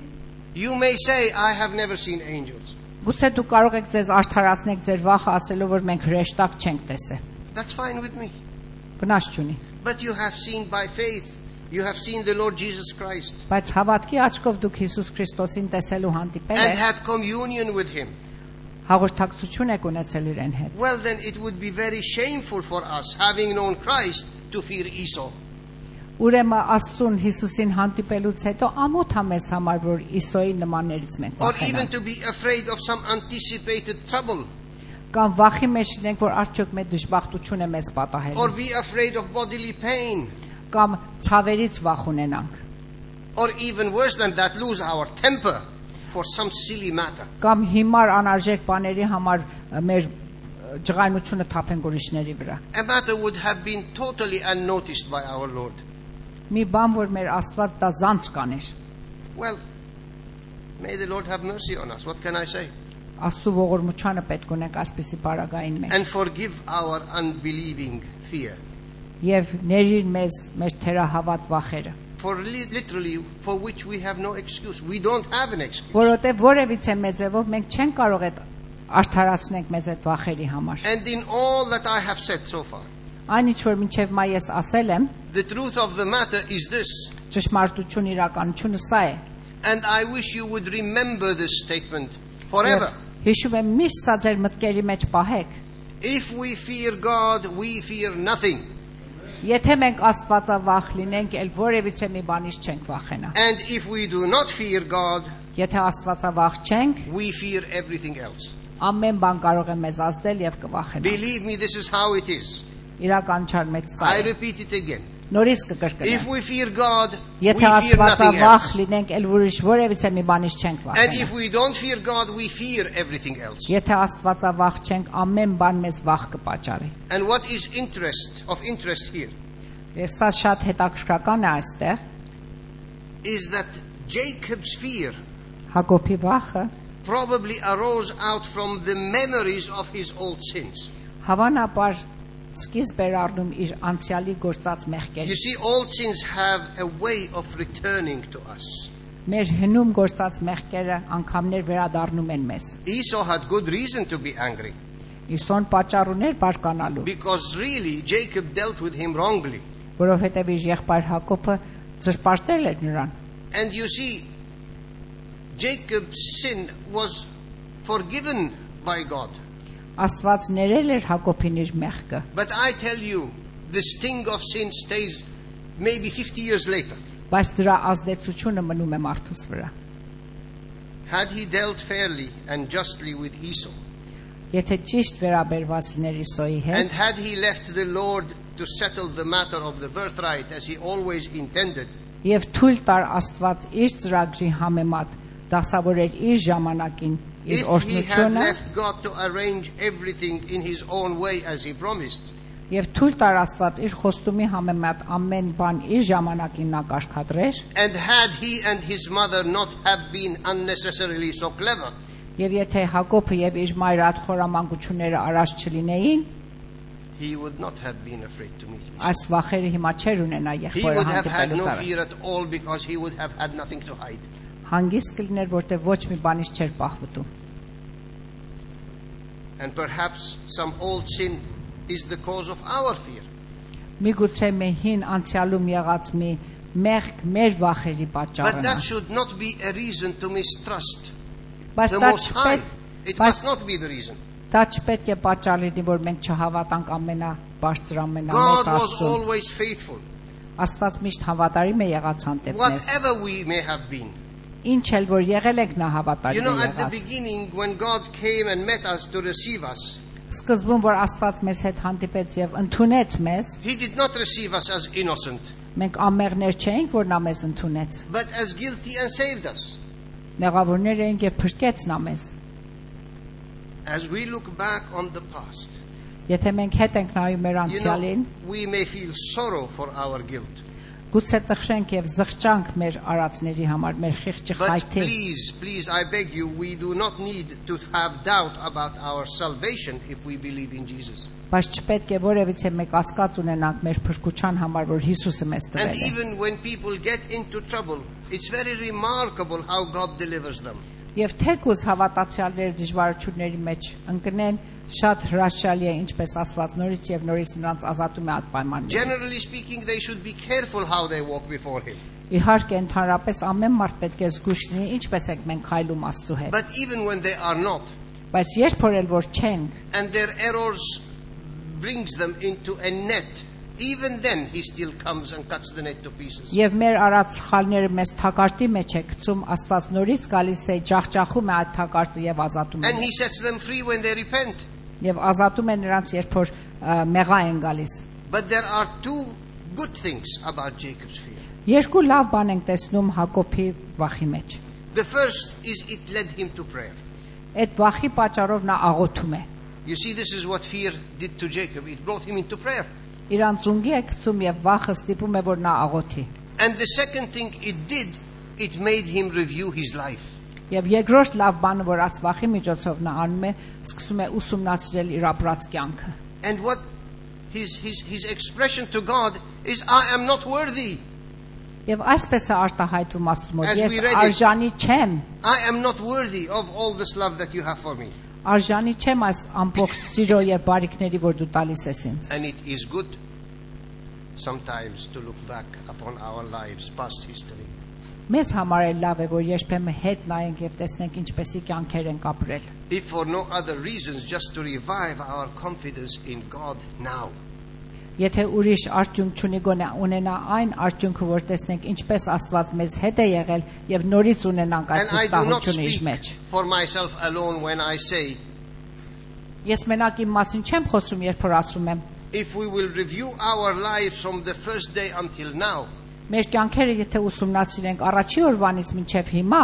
You may say, I have never seen angels. Գուցե դուք կարող եք ձեզ արդարացնել ձեր վախը ասելով որ մենք հրեշտակ չենք տեսել։ That's fine with me. Վնաս չունի։ But you have seen by faith, you have seen the Lord Jesus Christ Բայց հավատքի աչքով դուք Հիսուս Քրիստոսին տեսելու հանդիպել and եք, had communion with him. հաղորդակցություն եք ունեցել իրեն հետ։ Well, then it would be very shameful for us, having known Christ, to fear Esau. Ուրեմն Աստծուն Հիսուսին հանդիպելուց հետո ամոթ է մեզ համար որ Իսոյի նմաններից մենք Or even վախենանք։ to be afraid of some anticipated trouble. Կամ վախի մեջ լինենք, որ արդյոք մեր դժբախտությունը մեզ պատահել or է, be afraid of bodily pain, կամ ցավերից վախ ունենանք, or even worse than that, lose our temper for some silly matter. կամ հիմար անարժեք բաների համար մեր ջղայնությունը թափենք ուրիշների վրա։ A matter would have been totally unnoticed by our Lord. Մի բան, որ մեր Աստված դա զանց կաներ։ Well, may the Lord have mercy on us. What can I say? Աստծո ողորմությանը պետք ունենք այսպիսի բարագային մեջ։ And forgive our unbelieving fear. Եվ ներիր մեզ մեր թերահավատ վախերը, For literally, for which we have no excuse. We don't have an excuse. որովհետև որևիցե մեծևով մենք չենք կարող այդ արդարացնենք մեզ այդ վախերի համար։ And in all that I have said so far, Այն ինչ որ մինչև մայ ես ասել եմ, the truth of the matter is this. ճշմարտություն իրականությունը սա է։ And I wish you would remember this statement forever. Հիշում եմ միշտ սա ձեր մտքերի մեջ պահեք։ If we fear God, we fear nothing. Եթե մենք Աստվածավախ լինենք, ել որևիցե մի բանից չենք վախենա։ And if we do not fear God, Եթե Աստվածավախ չենք, we fear everything else. ամեն բան կարող է մեզ ազդել եւ կվախենա։ Believe me, this is how it is. Իրականչար մեծ սա I է։ repeat it again. Նորից If կկրկնեմ։ we fear God, we Եթե fear nothing Աստվածավախ else. լինենք, ել ուրիշ որևիցե մի բանից չենք And վախենա։ if we don't fear God, we fear everything else. Եթե Աստվածավախ չենք, ամեն բան մեզ վախ կպատճառի։ And what is of interest here Եվ սա շատ հետաքրքրական է այստեղ։ is that Jacob's fear Հակոբի վախը probably arose out from the memories of his old sins. հավանաբար սկիզբ էր առնում իր անցյալի գործած You մեղքերից։ see, old sins have a way of returning to us. Մեր հնում գործած մեղքերը անգամներ վերադառնում են մեզ։ Esau had good reason to be angry Իսոն պատճառ ուներ բարկանալու, because really Jacob dealt with him wrongly. որովհետև իր եղբայր Հակոբը զրպարտել էր նրան։ And you see, Jacob's sin was forgiven by God. Աստված ներել էր Հակոբին իր մեղքը, But I tell you, the sting of sin stays maybe 50 years later. բայց դրա ազդեցությունը մնում է մարդուս վրա։ Had he dealt fairly and justly with Esau, Եթե ճիշտ վերաբերված լիներ Իսոյի and հետ, had he left the Lord to settle the matter of the birthright as he always intended, եւ թույլ տար Աստված իր ծրագրի համեմատ դասավորեր իր ժամանակին իր if he had օրհնությունը left God to arrange everything in his own way as he promised, եւ թույլ տար Աստված իր խոստումի համեմատ ամեն բան իր ժամանակին նա կարգադրեր, and had he and his mother not have been unnecessarily so clever, եւ եթե Հակոբը եւ իր մայրը այդ խորամանկությունները արած չլինեին, he would not have been afraid to meet Esau. այս վախերը հիմա չեր ունենա He եղբայրը would have had no հանդիպելուց առաջ։ fear at all because he would have had nothing to hide. Հանգիստ կլիներ, որտեղ ոչ մի բանից չէր պահվտու։ And perhaps some old sin is the cause of our fear. Միգուցե մի հին անցյալում եղած մի մեղք մեր վախերի But պատճառն է։ that should not be a reason to mistrust Բայց the դա Most High. չպետք It բայց must not be the reason. դա չպետք է պատճառ լինի, որ մենք չհավատանք ամենաբարձր God ամենամեծ was Աստծուն։ always faithful. Աստված միշտ հավատարիմ է եղած հանդեպ մեզ։ Whatever we may have been. Ինչ էլ որ եղել եք նա You հավատարիմ know, է at the եղած։ beginning, when God came and met us to receive us, Սկզբում որ Աստված մեզ հետ հանդիպեց եւ ընդունեց մեզ, He did not receive us as innocent, մենք ամեղներ չէինք, որ նա մեզ ընդունեց։ but as guilty and saved us. Մեղավորներ էինք եւ փրկեց նա մեզ։ As we look back on the past, Եթե մենք հետ ենք նայում մեր you անցյալին, know, we may feel sorrow for our guilt. գուցե տխրենք եւ զղջանք մեր արածների համար, մեր խիղճի But խայթի։ please, I beg you, we do not need to have doubt about our salvation if we believe in Jesus. Բայց չպետք է որևիցե մեկ ասկաց ունենանք մեր փրկության համար, որ Հիսուսը մեզ And տվել է։ even when people get into trouble, it's very remarkable how God delivers them. Եվ թեկուզ հավատացյալները դժվարությունների մեջ ընկնեն, շատ հրաշալի է ինչպես Աստված նորից եւ նորից նրանց ազատում է այդ պայմաններից։ Generally speaking, they should be careful how they walk before Him. Իհարկե ընդհանրապես ամեն մարդ պետք է զգույշ լինի, ինչպես ենք մենք քայլում Աստծո հետ։ But even when they are not, Բայց երբ որ էլ որ չենք, and their errors brings them into a net, even then He still comes and cuts the net to pieces. եւ մեր արած սխալները մեզ թակարդի մեջ է գցում, Աստված նորից գալիս է, ջախջախում է այդ թակարդը եւ ազատում And է։ He sets them free when they repent. Եվ ազատում է նրանց, երբ որ մեղա են գալիս։ But there are two good things about Jacob's fear. Երկու լավ բան ենք տեսնում Հակոբի վախի մեջ։ The first is it led him to prayer. Այդ վախի պատճառով նա աղոթում է։ You see, this is what fear did to Jacob. It brought him into prayer. Իրան ծունգի է գցում եւ վախը ստիպում է որ նա աղոթի։ And the second thing it did, it made him review his life. Եվ երկրորդ լավ բանը, որ աս վախի միջոցով նա անում է, սկսում է ուսումնասիրել իր ապրած կյանքը։ And what his expression to God is, I am not worthy. Եվ այսպես է արտահայտվում Աստծո մոտ. As Ես we read it, արժանի չեմ, I am not worthy of all this love that you have for me. արժանի չեմ այս ամբողջ սիրո եւ բարիքների, որ դու տալիս ես ինձ։ And it is good sometimes to look back upon our lives, past history. Մեզ համար է լավ է, որ երբեմն հետ նայենք եւ տեսնենք ինչպեսի կյանքեր ենք ապրել։ If for no other reasons, just to revive our confidence in God now. Եթե ուրիշ արդյունք չունի, գոնե ունենա այն արդյունքը, որ տեսնենք ինչպես Աստված մեզ հետ է եղել եւ նորից ունենանք այդ And I do not վստահությունը իր speak մեջ։ for myself alone when I say, Ես մենակ իմ մասին չեմ խոսում, երբ որ ասում եմ, if we will review our lives from the first day until now, մեր կյանքերը եթե ուսումնասիրենք առաջի օրվանից մինչև հիմա,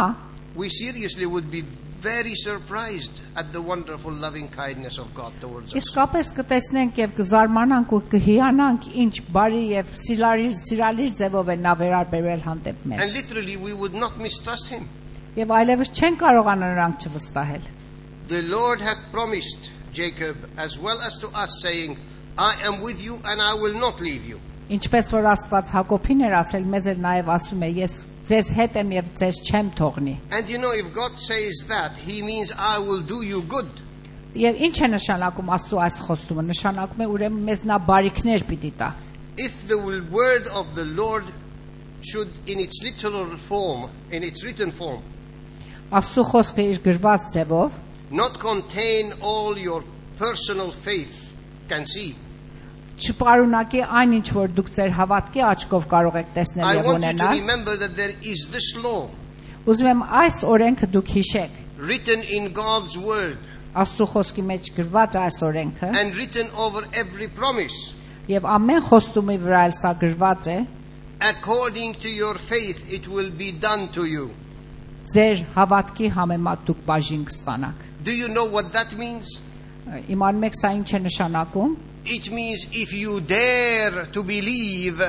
we seriously would be very surprised at the wonderful loving kindness of God towards us. իսկապես կտեսնենք եւ կզարմանանք ու կհիանանք ինչ բարի եւ սիրալիր ձևով է նա վերաբերել հանդեպ And մեզ։ literally we would not mistrust him. Եվ այլևս չեն կարողանա նրանք չվստահել։ The Lord hath promised Jacob as well as to us, saying, I am with you and I will not leave you. Ինչպես որ Աստված Հակոբին էր ասել, մեզ էլ նաեւ ասում է, ես ձեզ հետ եմ եւ ձեզ չեմ թողնի։ And you know, if God says that, he means I will do you good. Եվ ինչ է нշանակում Աստծո այս խոստումը։ Նշանակում է ուրեմն մեզ նա բարիքներ պիտի տա։ If the word of the Lord should in its literal form, in its written form, Աստծո խոսքը իր գրված ձևով not contain all your personal faith can see, չպարունակի այն ինչ որ դուք ձեր հավատքի աչքով կարող եք տեսնել I եւ want you to ունենալ։ remember that there is this law Ուզում եմ այս օրենքը դուք հիշեք։ written in God's word Աստծո խոսքի մեջ գրված է այս օրենքը and written over every promise. եւ ամեն խոստումի վրա էլ սա գրված է։ According to your faith it will be done to you. Ձեր հավատքի համեմատ դուք բաժին կստանաք։ Do you know what that means? Իմանում եք սա ինչ է նշանակում։ It means if you dare to believe,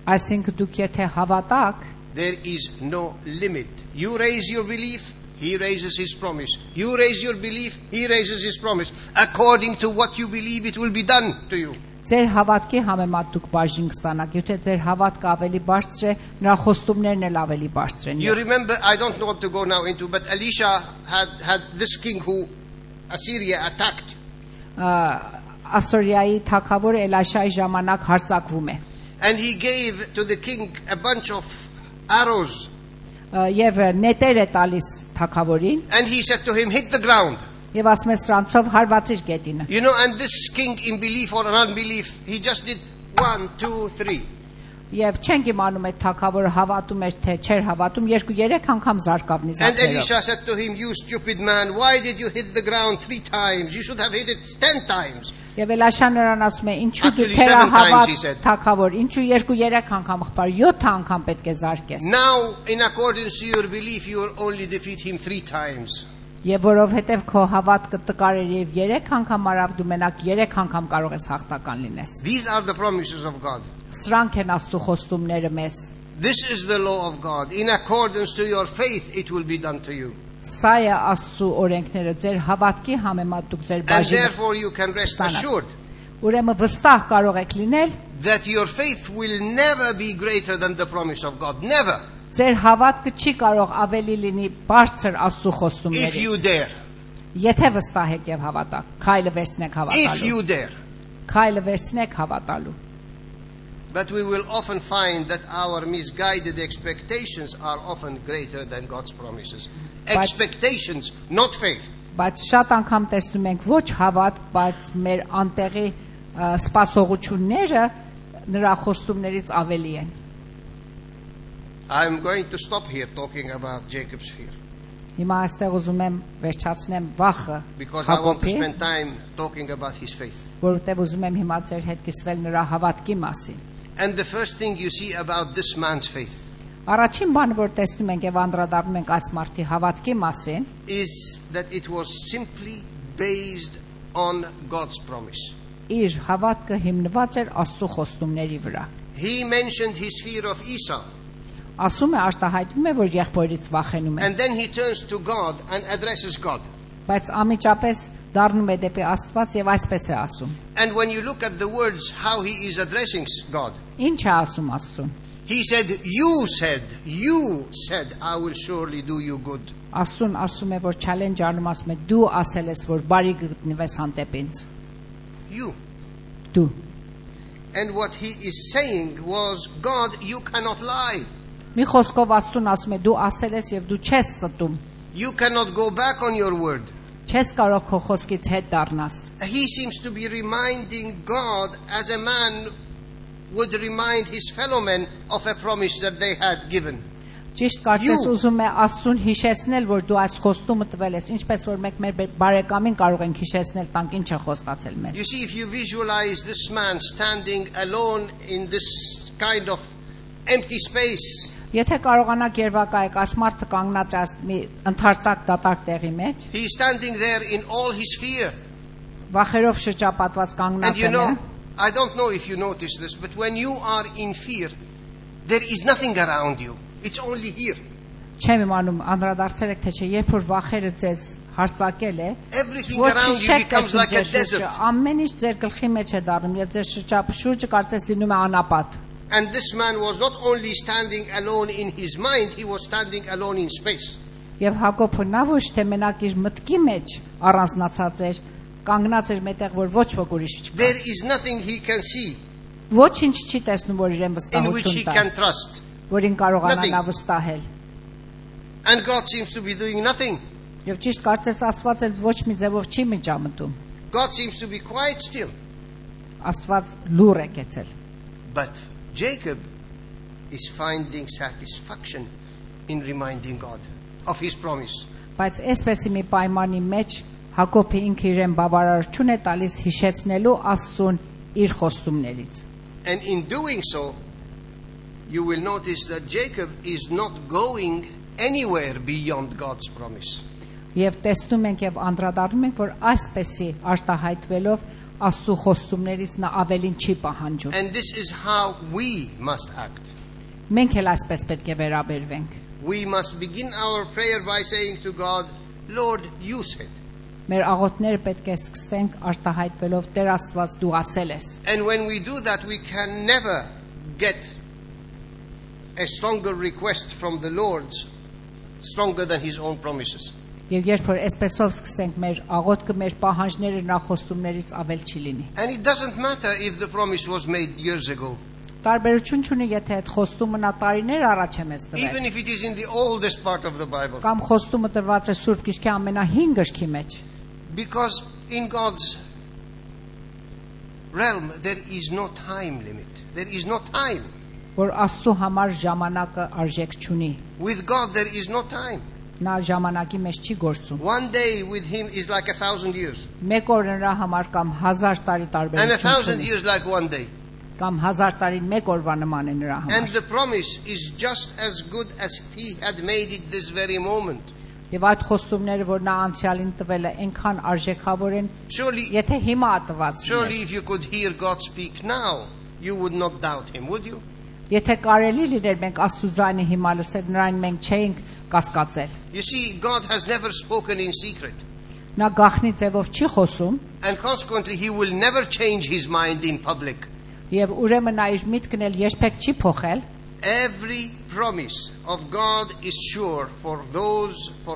Այսինքն դուք եթե հավատաք, there is no limit. You raise your belief, he raises his promise. You raise your belief, he raises his promise. According to what you believe, it will be done to you. ձեր հավատքի համեմատ դուք բաժին կստանաք։ Եթե ձեր հավատքը ավելի բարձր է, նրա խոստումներն էլ ավելի բարձր են։ You remember, I don't want to go now into, but Elisha had this king who Assyria attacked. Ասորիայի թագավոր Էլաշայի ժամանակ հարձակվում է։ And he gave to the king a bunch of arrows. Եվ նետեր է տալիս թագավորին And he said to him, hit the ground. եւ ասում է սրանցով հարվածիր գետինը։ You know, and this king in belief or unbelief, he just did 1, 2, 3. Եվ չենք իմանում այդ թագավորը հավատում էր թե չէր հավատում, 2-3 անգամ զարկավ And նիզակներով։ Elisha said to him, you stupid man, why did you hit the ground 3 times? You should have hit it 10 times. Եվ Էլաշան նրան ասում է, ինչու դու Actually, 7 times, թերահավատ he said. թագավոր, ինչու 2-3 անգամ խփար, 7 անգամ պետք է զարկես։ Now, in accordance to your belief, you will only defeat him 3 times. Եվ որովհետև քո հավատքը տկար էր եւ 3 անգամ արավ, դու մենակ 3 անգամ կարող ես հաղթական լինես։ These are the promises of God. Սրանք են Աստծո խոստումները մեզ։ This is the law of God. In accordance to your faith, it will be done to you. Սա է Աստծո օրենքները, ձեր հավատքի համեմատ դուք ձեր And բաժինը therefore you can rest assured ուրեմն վստահ կարող եք լինել, that your faith will never be greater than the promise of God. Never. ձեր հավատքը չի կարող ավելի լինի բարձր Աստծո If you խոստումներից։ dare. Եթե վստահ եք եւ հավատաք, քայլը վերցնեք If հավատալու։ you dare. Քայլը վերցնեք հավատալու։ But we will often find that our misguided expectations are often greater than God's promises. Expectations, not faith. Բայց շատ անգամ տեսնում ենք ոչ հավատ, բայց մեր անտեղի սպասողությունները նրա խոստումներից ավելի են։ I'm going to stop here talking about Jacob's fear. Հիմա այստեղ ուզում եմ վերջացնեմ վախը because I want to Հակոբի, spend time talking about his faith. որովհետև ուզում եմ հիմա ձեր հետ կիսվել նրա հավատքի մասին։ And the first thing you see about this man's faith Առաջին բանը, որ տեսնում ենք եւ անդրադառնում ենք այս մարդի հավատքի մասին, is that it was simply based on God's promise. իր հավատքը հիմնված էր Աստծո խոստումների վրա։ He mentioned his fear of Esau, Ասում է արտահայտվում է, որ եղբորից վախենում է, and then he turns to God and addresses God. բայց անմիջապես դառնում է դեպի Աստված եւ այսպես է ասում։ And when you look at the words, how he is addressing God, Ինչ է ասում Աստծուն։ he said, you said, I will surely do you good. Աստծուն ասում է, որ challenge անում ասում է դու ասել ես, որ բարի գտնվես հանդեպ ինձ։ You. Դու։ And what he is saying was, God, you cannot lie. Մի խոսքով Աստծուն ասում է դու ասել ես եւ դու չես ստում։ You cannot go back on your word. Չես կարող քո խոսքից հետ դառնաս։ He seems to be reminding God as a man would remind his fellow men of a promise that they had given. Ճիշտ կարծես ուզում է Աստծուն հիշեցնել, որ դու այս խոստումը տվել ես, ինչպես որ մենք մեր բարեկամին կարող ենք հիշեցնել, տանք ինչ է խոստացել մեզ։ You see, if you visualize this man standing alone in this kind of empty space, Եթե կարողանաք երևակայեք, այս մարդը կանգնած է մի ընդարձակ դատարկ տեղի մեջ, he is standing there in all his fear. վախերով շրջապատված And կանգնած you է։ know, I don't know if you notice this, but when you are in fear, there is nothing around you. It's only here. Չեմ իմանում անդրադարձել եք թե չէ, երբ որ վախերը ձեզ հարցակել է, Everything around you becomes like a desert. ամեն ինչ ձեր գլխի մեջ է դառնում եւ ձեր շրջապշուրջը կարծես լինում է անապատ։ And this man was not only standing alone in his mind, he was standing alone in space. Եվ Հակոբը նա ոչ թե մենակ իր մտքի մեջ առանձնացած էր, կանգնած էր մետեղ, որ ոչ ոք ուրիշ չկա։ There is nothing he can see Ոչինչ չի տեսնում, որ իրեն in which he վստահություն տա, can trust. որին կարողանա Nothing. նա վստահել։ And God seems to be doing nothing. Եվ ճիշտ կարծես Աստված էլ ոչ մի ձևով չի միջամտում։ God seems to be quiet still. Աստված լուր է կեցել։ But Jacob is finding satisfaction in reminding God of his promise. Բայց այսպեսի մի պայմանի մեջ Հակոբը ինքը իրեն բավարարություն է տալիս հիշեցնելու Աստծուն իր խոստումներից։ And in doing so, you will notice that Jacob is not going anywhere beyond God's promise. Եվ տեսնում ենք եւ անդրադառնում ենք, որ այսպեսի արտահայտվելով Աստծո խոստումներից նա ավելին չի պահանջում։ And this is how we must act. Մենք էլ այսպես պետք է վերաբերվենք։ We must begin our prayer by saying to God, Lord, you said. Մեր աղոթները պետք է սկսենք արտահայտվելով Տեր Աստված դու ասել ես։ And when we do that, we can never get a stronger request from the Lord, stronger than his own promises. Եվ երբ որ այսպեսով սկսենք մեր աղոթքը մեր պահանջները նրա խոստումներից ավել չի լինի։ And it doesn't matter if the promise was made years ago, Տարբերություն չունի, եթե այդ խոստումը նա տարիներ առաջ է մեզ տվել, even if it is in the oldest part of the Bible. կամ խոստումը տրված է Սուրբ Գիրքի ամենահին գրքի մեջ, Because in God's realm, there is no time limit. There is no time. որ Աստծո համար ժամանակը արժեք չունի։ With God, there is no time. Նա ժամանակի մեջ չի գործում։ One day with him is like 1,000 years. Մեկ օր նրա համար կամ 1000 տարի And 1,000 տարբերություն ունի, years like one day. կամ 1000 տարին մեկ օրվա նման է նրա And համար։ the promise is just as good as if he had made it this very moment. Եվ այդ խոստումները, որ նա անցյալին տվել է, այնքան արժեքավոր են, Surely, եթե հիմա ատված surely լիներ։ if you could hear God speak now, you would not doubt him, would you? Եթե կարելի լիներ մենք Աստծո ձայնը հիմա լսել, նրան մենք չէինք կասկածել։ You see, God has never spoken in secret. Նա գաղտնի ձևով չի խոսում, And consequently, he will never change his mind in public. եւ ուրեմն նա իր միտքն էլ երբեք չի փոխել։ Every promise of God is sure for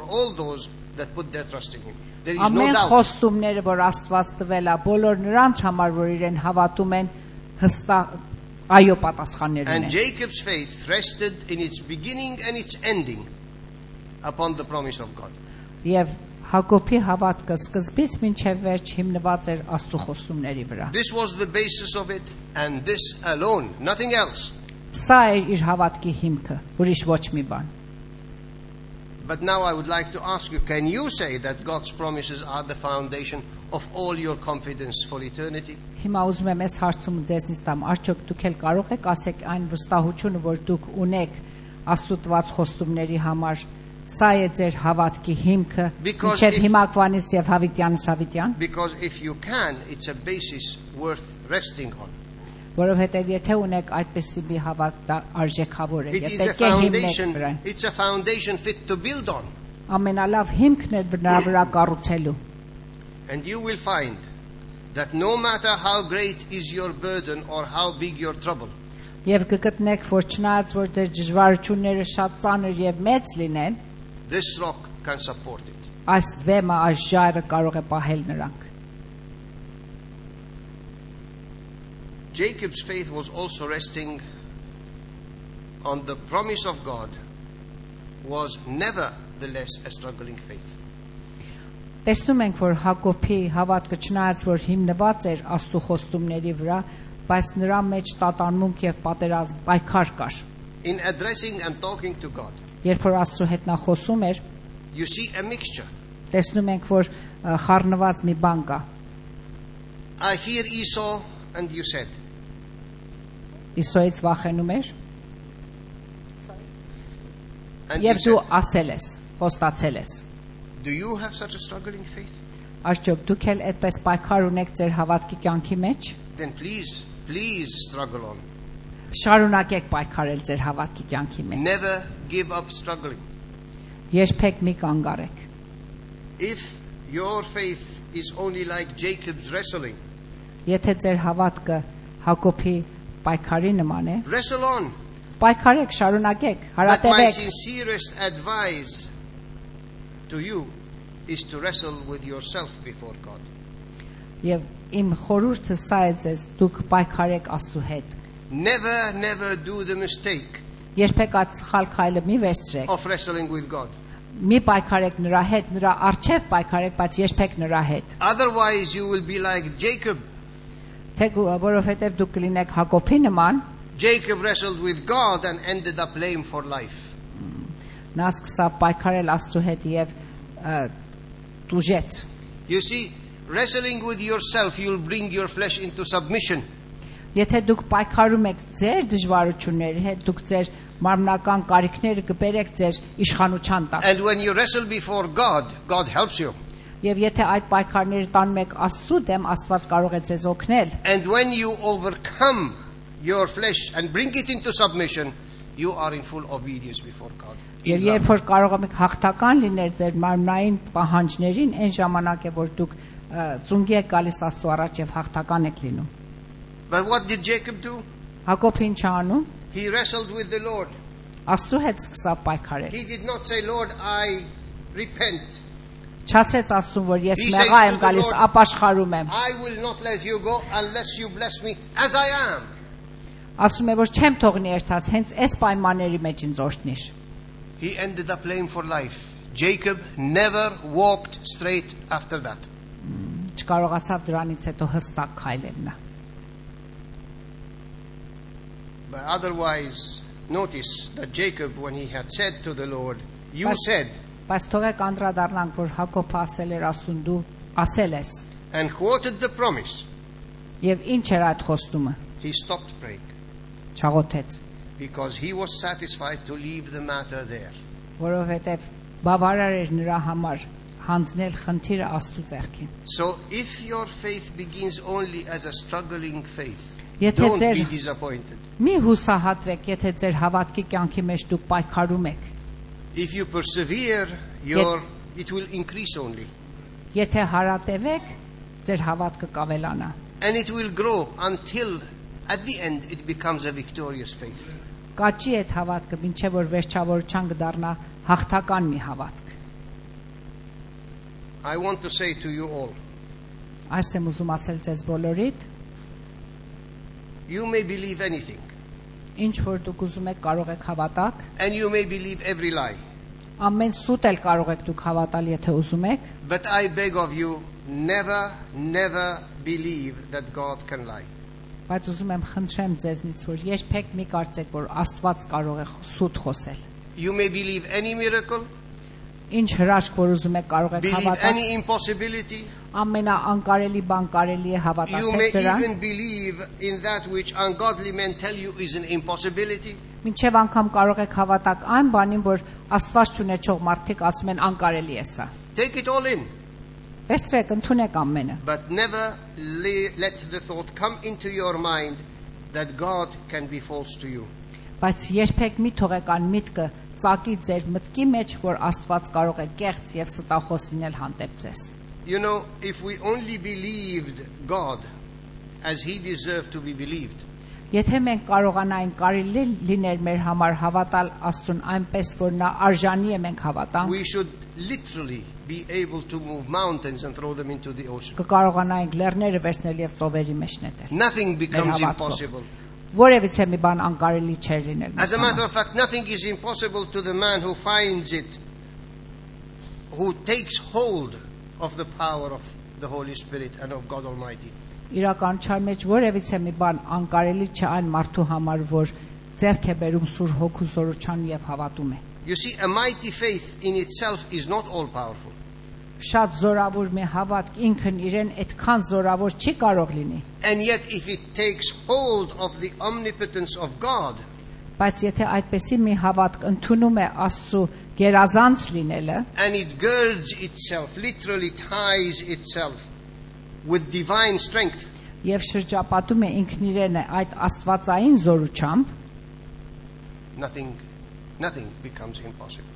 all those that put their trust in him. There is no Ամեն doubt. խոստումները, որ Աստված տվել է, բոլոր նրանց համար, որ իրեն հավատում են, հստակ այո պատասխաններ And ունեն։ Jacob's faith rested in its beginning and its ending upon the promise of God. Եվ Հակոբի հավատքը սկզբից մինչև վերջ հիմնված էր Աստծո խոստումների վրա։ This was the basis of it, and this alone, nothing else. Սա էր իր հավատքի հիմքը, ուրիշ ոչ մի բան։ But now I would like to ask you, can you say that God's promises are the foundation of all your confidence for eternity? Հիմա ուզում եմ այս հարցում ձեզնից տամ, արդյոք դուք էլ կարող եք ասեք այն վստահությունը, որ դուք ունեք աստուծված խոստումների համար, սա է ձեր հավատքի հիմքը, մինչև հիմակվանից եւ հավիտյանից հավիտյան? Because if you can, it's a basis worth resting on. Որովհետեւ եթե ունեք այդպիսի մի հավատ արժեքավոր է, It is եթե a կե հիմնեք foundation. վրա, It's a foundation fit to build on, ամենալավ հիմքն է նրա վրա կառուցելու։ and you will find that no matter how great is your burden or how big your trouble, Եվ կգտնեք, որ չնայած որ դեր դժվարությունները շատ ծանր եւ մեծ լինեն, this rock can support it. այս վեմը, այս ժայռը կարող է պահել նրանք։ Jacob's faith was also resting on the promise of God, was nevertheless a struggling faith. Տեսնում ենք, որ Հակոբի հավատքը չնայած որ հիմնված էր Աստծո խոստումների վրա, բայց նրա մեջ տատանմունք եւ պատերազմ պայքար կար։ In addressing and talking to God, Երբ որ Աստծո հետ նա խոսում էր, you see a mixture. տեսնում ենք, որ խառնված մի բան կա։ I fear Esau, and you said. Իսոից վախենում էր, And եւ you դու said, ասել ես, խոստացել ես։ do you have such a struggling faith? Արդյոք դուք էլ այդպես պայքար ունեք ձեր հավատքի կյանքի մեջ։ Then please struggle on. Շարունակեք պայքարել ձեր հավատքի կյանքի մեջ։ Never give up struggling. Երբեք մի կանգ առեք։ If your faith is only like Jacob's wrestling, Եթե ձեր հավատքը Հակոբի պայքարի նման է, wrestle on. պայքարեք, շարունակեք, But my հարատևեք։ sincerest advice to you is to wrestle with yourself before God. Եվ իմ խորհուրդը սա է ձեզ, դուք պայքարեք Աստծո հետ։ Never do the mistake Երբեք այդ սխալ քայլը մի վերցրեք։ of wrestling with God. Մի պայքարեք նրա հետ, նրա առջև պայքարեք, բայց երբեք նրա հետ։ Otherwise you will be like Jacob. Թե որովհետև դուք կլինեք Հակոբի նման, Jacob wrestled with God and ended up lame for life. նա սկսավ պայքարել Աստծո հետ եւ տուժեց։ You see, wrestling with yourself, you'll bring your flesh into submission. Եթե դուք պայքարում եք ձեր դժվարությունների հետ, դուք ձեր մարմնական կարիքները կբերեք ձեր իշխանության տակ։ And when you wrestle before God, God helps you. Եվ եթե այդ պայքարները տանում եք Աստծո դեմ, Աստված կարող է ձեզ օգնել։ And when you overcome your flesh and bring it into submission, you are in full obedience before God. Եվ երբ որ կարող եք հաղթական լինել ձեր մարմնային պահանջներին, այն ժամանակ է որ դուք ծունգի եք գալիս Աստծո առաջ եւ հաղթական եք լինում։ But what did Jacob do? Հակոբը ինչ անում։ He wrestled with the Lord. Աստծո հետ սկսավ պայքարել։ He did not say, Lord, I repent. Չասեց Աստծուն, որ ես He մեղա says եմ to the գալիս, Lord, ապաշխարում եմ։ I will not let you go unless you bless me as I am. Ասում է, որ չեմ թողնի երթաս, հենց այս պայմանների մեջ ինձ օրհնիր։ He ended up lame for life. Jacob never walked straight after that. Չկարողացավ դրանից հետո հստակ քայլել նա։ But otherwise, notice that Jacob, when he had said to the Lord, you But- said, Բայց թողեք անդրադառնանք, որ Հակոբը ասել էր Աստծուն, դու ասել ես։ and quoted the promise, Եվ ինչ էր այդ խոստումը։ he stopped praying Չաղոթեց, because he was satisfied to leave the matter there. որովհետև բավարար էր նրա համար հանձնել խնդիրը Աստծո ձեռքին։ So if your faith begins only as a struggling faith, Եթե don't ձեր- be disappointed. Մի հուսահատվեք, եթե ձեր հավատքի կյանքի մեջ դուք պայքարում եք։ If you persevere, it will increase only. Եթե հարատևեք, ձեր հավատքը կավելանա։ And it will grow until at the end it becomes a victorious faith. Կաճի այդ հավատքը, մինչև որ վերջավորության կդառնա հաղթական մի հավատք։ I want to say to you all, Այս եմ ուզում ասել ձեզ բոլորիդ, you may believe anything, ինչ որ դուք ուզում եք կարող եք հավատալ, and you may believe every lie. ամեն սուտ էլ կարող եք դուք հավատալ, եթե ուզում եք, But I beg of you, never believe that God can lie. բայց ուզում եմ խնդրեմ ձեզնից, որ երբեք մի կարծեք, որ Աստված կարող է սուտ խոսել։ You may believe any miracle, Ինչ հրաշք որ ուզում եք կարող եք Believe հավատալ, any impossibility. ամենաանկարելի բան կարելի է You հավատացել may դրան, even believe in that which ungodly men tell you is an impossibility. մինչև անգամ կարող եք հավատալ այն բանին, որ Աստված չունեցող մարդիկ ասում են անկարելի է սա։ Take it all in. Վերցրեք, ընդունեք ամենը, But never let the thought come into your mind that God can be false to you. բայց երբեք մի թողեք այն միտքը ծակի ձեր մտքի մեջ, որ Աստված կարող է կեղծ եւ ստախոս լինել հանդեպ ձեզ։ You know, if we only believed God as He deserved to be believed, Եթե մենք կարողանայինք կարելի լիներ մեր համար հավատալ Աստծուն այնպես, որ նա արժանի է մենք հավատանք, we should literally be able to move mountains and throw them into the ocean. կկարողանայինք լեռները վերցնել եւ ծովերի մեջ նետել։ Nothing becomes Մեր հավատքով։ impossible. Որևիցե մի բան անկարելի չէր լինել։ As a մեզ matter համար։ of fact, nothing is impossible to the man who finds it, who takes hold of the power of the Holy Spirit and of God Almighty. Իրականության մեջ որևիցե մի բան անկարելի չէ այն մարդու համար, որ ձեռք է բերում Սուրբ Հոգու զորության եւ հավատում է։ You see, a mighty faith in itself is not all powerful. Շատ զորավոր մի հավատք ինքն իրեն այդքան զորավոր չի կարող լինի, And yet, if it takes hold of the omnipotence of God, բայց եթե այդպեսի մի հավատք ընդունում է Աստծո գերազանց լինելը, and it girds itself, literally ties itself with divine strength, եւ շրջապատում է ինքն իրեն այդ աստվածային զորությամբ, nothing becomes impossible.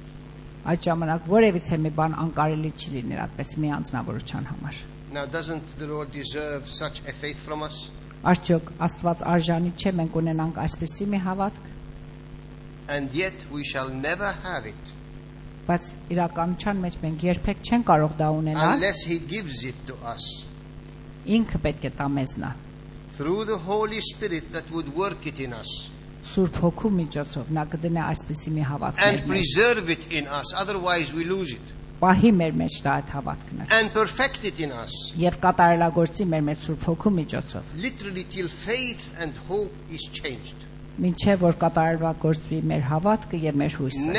այդ ժամանակ որևիցե մի բան անկարելի չի լինել այդպես մի անձնավորության համար։ Now, doesn't the Lord deserve such a faith from us? Արդյոք Աստված արժանի չէ մենք ունենանք այսպեսի մի հավատք, And yet, we shall never have it բայց իրականության մեջ մենք երբեք չենք կարող դա ունենալ, unless He gives it to us ինքը պետք է տա մեզ նա, through the Holy Spirit that would work it in us Սուրբ Հոգու միջոցով նա կդնի այսպեսի մի հավատք and մեր մեջ, preserve it in us, otherwise we lose it, պահի մեր մեջ դա այդ հավատքն and perfect it in us, եւ կատարելագործի մեր մեջ Սուրբ Հոգու միջոցով, literally till faith and hope is changed. մինչեւ որ կատարելագործվի մեր հավատքը եւ մեր հույսը։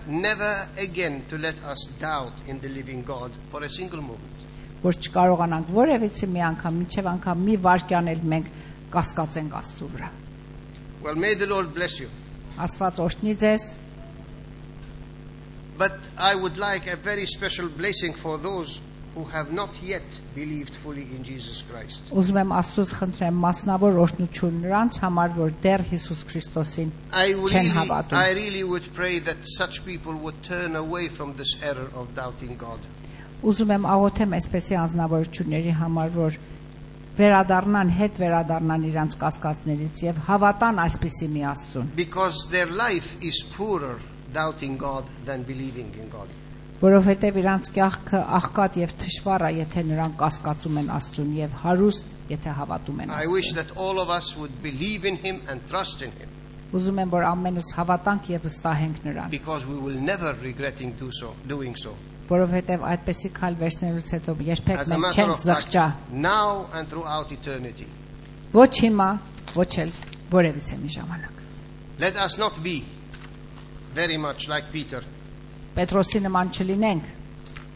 Never again to let us doubt in the living God for a single moment. Որ չկարողանանք որևիցե մի անգամ, մինչև անգամ մի վայրկյան էլ մենք կասկածենք Աստծո վրա։ Well, may the Lord bless you. Աստված օրհնի ձեզ, But I would like a very special blessing for those who have not yet believed fully in Jesus Christ. ուզում եմ Աստծուց խնդրեմ մասնավոր օրհնություն նրանց համար, որ դեռ Հիսուս Քրիստոսին չեն հավատում։ I really would pray that such people would turn away from this error of doubting God. Ուզում եմ աղոթեմ այսպեսի անձնավորությունների համար, որ վերադառնան, հետ վերադառնան իրանց կասկածներից եւ հավատան այսպիսի մի Աստծուն, Because their life is poorer doubting God than believing in God. որովհետեւ իրանց կյանքը աղքատ եւ թշվառ է, եթե նրանք կասկածում են Աստծուն եւ հարուստ, եթե հավատում են I wish Աստծուն։ that all of us would believe in Him and trust in Him, Ուզում եմ որ ամենս հավատանք եւ վստահենք նրան, because we will never regretting doing so. որովհետեւ այդպեսի քայլ վերցնելուց հետո երբեք As a մենք matter չենք of fact, զղջա, now and throughout eternity. ոչ հիմա, ոչ էլ որևիցե մի ժամանակ։ Let us not be very much like Peter. Պետրոսի նման չլինենք։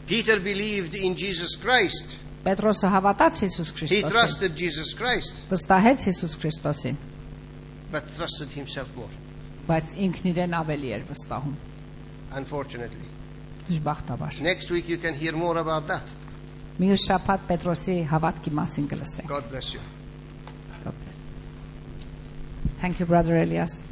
Peter believed in Jesus Christ. Պետրոսը հավատաց Հիսուս He Քրիստոսին, trusted Jesus Christ, վստահեց Հիսուս Քրիստոսին, but trusted himself more, բայց ինքն իրեն ավելի էր վստահում։ unfortunately. Դժբախտաբար։ Next week you can hear more about that. Մյուս շաբաթ Պետրոսի հավատքի մասին կլսենք։ God bless you. God bless. Thank you, Brother Elias.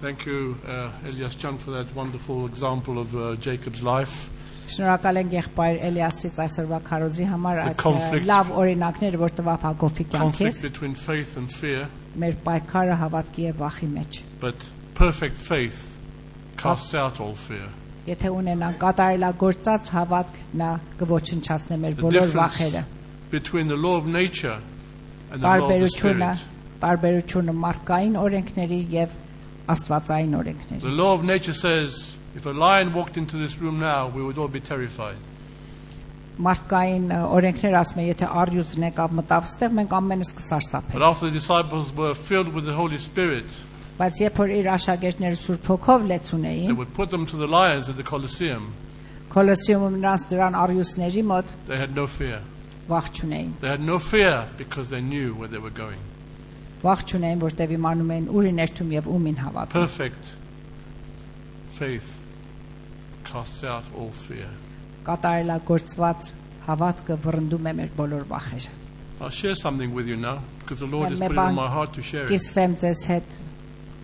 Thank you, Elias Chan, for that wonderful example of Jacob's life. Շնորհակալ ենք եղբայր Էլիասից այսօրվա քարոզի համար այդ conflict- լավ օրինակները, որ տվավ Հակոբի Conflict կյանքից, between faith and fear, մեր պայքարը հավատքի եւ վախի մեջ։ but perfect faith casts out all fear. Եթե ունենանք կատարելագործած հավատք, նա կոչնչացնի մեր The բոլոր difference վախերը։ between the law of nature and the law of the spirit. Տարբերությունը մարդկային օրենքների եւ աստվածային The օրենքների։ law of nature says, if a lion walked into this room now, we would all be terrified. Մարդկային օրենքները ասում են, եթե առյուծն եկավ մտավ ստեղ, մենք ամենս կսարսափենք։ But after the disciples were filled with the Holy Spirit, Բայց երբ որ իր աշակերտները Սուրբ Հոգով լեցուն they էին, would put them to the lions at the Colosseum. Կոլոսեումում նրանց դրան առյուծների մոտ They had no fear. վախ չունեին։ They had no fear because they knew where they were going. Վախ չունեին, որտեղ իմանում էին ուր են երթում եւ ումին հավատում։ Perfect faith casts out all fear. Կատարելագործված հավատքը վռնդում է մեր բոլոր վախերը։ I'll share something with you now because the Lord has Մի put it on բան my heart to share it. Կիսվեմ ձեզ հետ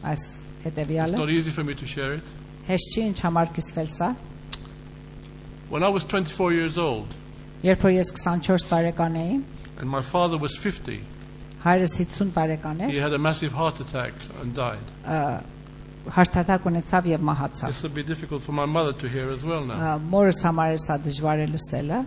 այս It's հետեւյալը։ not easy for me to share it. Հեշտ չի ինչ համար կիսվել սա։ When I was 24 years old Երբ որ ես 24 տարեկան էի, and my father was 50, հայրս 50 տարեկան he էր, had a massive heart attack and died. հարտատակ ունեցավ եւ մահացավ։ This will be difficult for my mother to hear as well now. Մորս համար է սա դժվար է լսելը։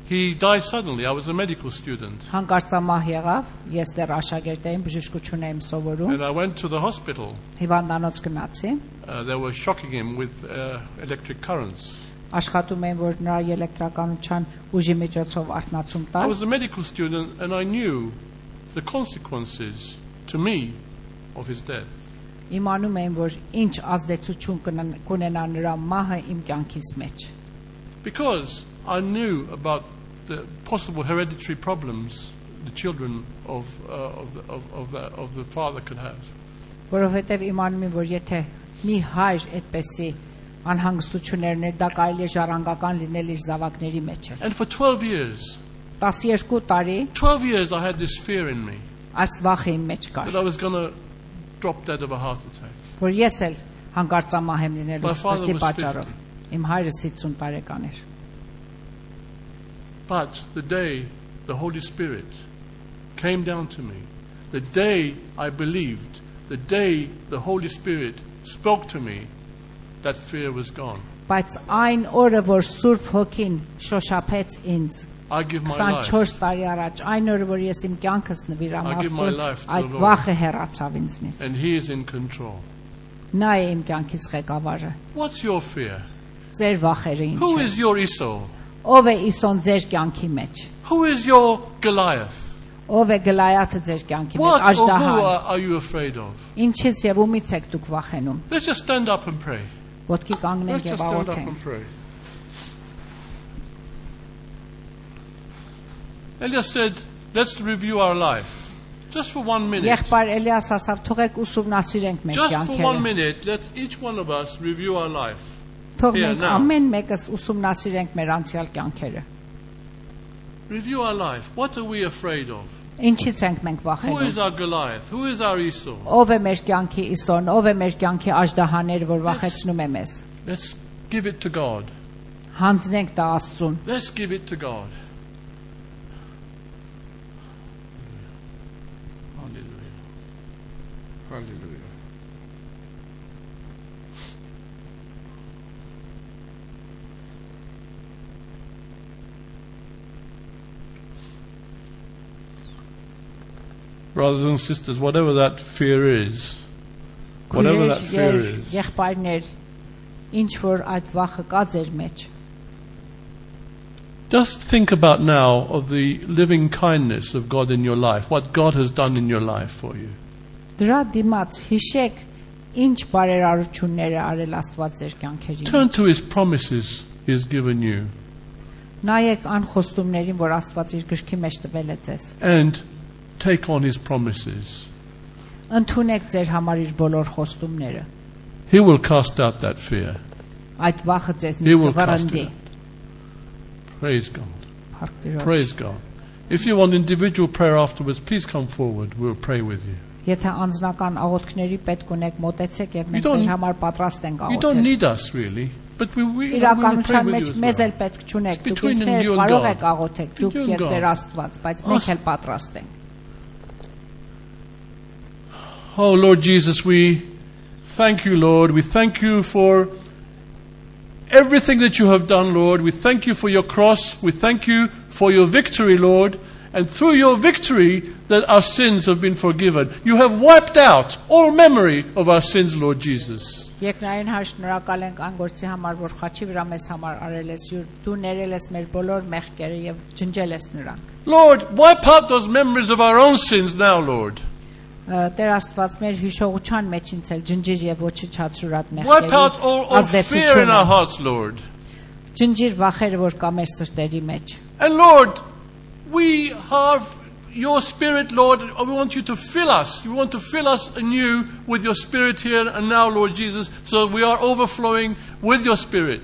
He died suddenly. I was a medical student. Հանկարծամահ եղավ, ես դեռ աշակերտ էի, բժշկություն էի սովորում, And I went to the hospital. հիվանդանոց գնացի, They were shocking him with electric currents. աշխատում էին, որ նրա էլեկտրականության ուժի միջոցով արթնացում I տալ։ was a medical student and I knew the consequences to me of his death. Իմանում էին, որ ինչ ազդեցություն կունենա նրա մահը իմ կյանքիս մեջ։ Because I knew about the possible hereditary problems the children of the father could have. Որովհետև իմանում եմ, որ եթե մի հայր այդպեսի անհանգստություններ դա կարելի է ժառանգական լինել իր զավակների մեջ։ And for 12 years, 12 տարի 12 years I had this fear in me այս վախը իմ մեջ կար, that I was going to drop dead of a heart attack. որ ես էլ հանկարծամահ եմ լինելու My father սրտի was պատճառով։ Իմ հայրս 50 տարեկան էր։ But the day the Holy Spirit came down to me, the day I believed, the day the Holy Spirit spoke to me, that fear was gone. Բայց այն օրը, որ Սուրբ Հոգին շոշափեց ինձ, I give my life. 24 տարի առաջ, այն օրը, որ ես իմ կյանքս նվիրամ I give my Աստծուն, life to այդ the Lord. վախը հեռացավ ինձնից։ And He is in control. Նա է իմ կյանքիս ղեկավարը։ What's your fear? Ձեր վախերը ինչ Who են։ is your Esau? Ով է Իսոն ձեր կյանքի մեջ։ Who is your Goliath? Ով է Գլայաթը ձեր կյանքի մեջ, What or who Աժդահան։ are you afraid of? Ինչից եւ ումից եք դուք վախենում։ Let's just stand up and pray. Ոտքի Let's կանգնենք just եւ stand up աղոթենք։ and pray. Elias said, let's review our life. Just for 1 minute. Եղբայր Էլիաս ասավ, թողեք ուսումնասիրենք մեր Just for 1 կյանքերը։ minute, let each one of us review our life. Թող Here, մենք now. ամեն մեկս ուսումնասիրենք մեր անցյալ կյանքերը։ Review our life. What are we afraid of? Ինչից ենք մենք Who is վախենում։ our Goliath? Who is our Esau? Ով է մեր կյանքի Իսոն, ով է մեր կյանքի Աժդահաները, որ վախեցնում է մեզ։ Let's give it to God. Հանձնենք դա Աստծուն։ Let's give it to God. Hallelujah. Hallelujah. Brothers and sisters, whatever that fear is, whatever that fear is, Եղբայրներ, ինչ որ այդ վախը կա ձեր մեջ։ just think about now of the living kindness of God in your life, what God has done in your life for you. Դրա դիմաց հիշեք ինչ բարերարություններ է արել Աստված ձեր կյանքերի Turn մեջ։ to His promises He has given you Նայեք անխոստումներին, որ Աստված իր գրքի մեջ տվել է ձեզ։ and take on His promises. Ընդունեք ձեր համար իր բոլոր խոստումները։ He will cast out that fear. Այդ վախը He ձեզնից will cast կվռնդի։ it. Praise God. Փառք Տիրոջ։ Praise God. If you want individual prayer afterwards, please come forward. We'll pray with you. Եթե անձնական աղոթքների պետք ունեք, մոտեցեք եւ You մենք don't- ձեր համար պատրաստ ենք You don't աղոթել։ need us really, but we will pray Իրականության with մեջ you as մեզ well. էլ պետք չունեք։ It's Դուք between you ինքներդ and կարող God. եք աղոթեք, դուք Between եւ God. ձեր Աստված, բայց մենք էլ պատրաստ ենք։ Oh Lord Jesus, we thank you, Lord. We thank you for everything that you have done, Lord. We thank you for your cross. We thank you for your victory, Lord. And through your victory, that our sins have been forgiven. You have wiped out all memory of our sins, Lord Jesus. Երկնային հայր, շնորհակալ ենք այն գործի համար, որ խաչի վրա մեզ համար արել ես, դու ներել ես մեր բոլոր մեղքերը եւ ջնջել ես նրանք։ Lord, wipe out those memories of our own sins now, Lord. Տեր Աստված մեր հիշողության մեջ ինցել ջնջիր եւ ոչնչացրած Wipe out մեղքերի all fear in our hearts, Lord. ջնջիր վախերը որ կա մեր սրտերի մեջ And Lord, we have your Spirit, Lord. We want you to fill us. You want to fill us anew with your Spirit here and now, Lord Jesus, so that we are overflowing with your Spirit.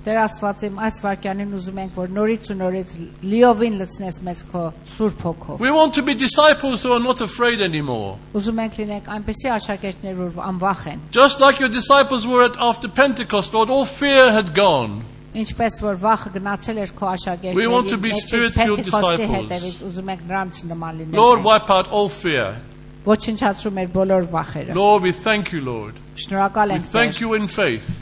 Տեր Աստված իմ այս վարքյանին ուզում ենք որ նորից ու նորից լիովին լցնես մեզ քո Սուրբ Հոգով We want to be disciples who are not afraid anymore. Ուզում ենք լինենք այնպիսի աշակերտներ որ անվախ են Just like your disciples were after Pentecost, Lord, all fear had gone. Ինչպես որ վախը գնացել էր քո We want to be աշակերտների spirit-filled disciples. հետևից ուզում ենք նրանց նման լինել Lord, wipe out all fear. ոչնչացրու մեր բոլոր վախերը Lord, we thank you, Lord. Շնորհակալ We ենք thank you in faith.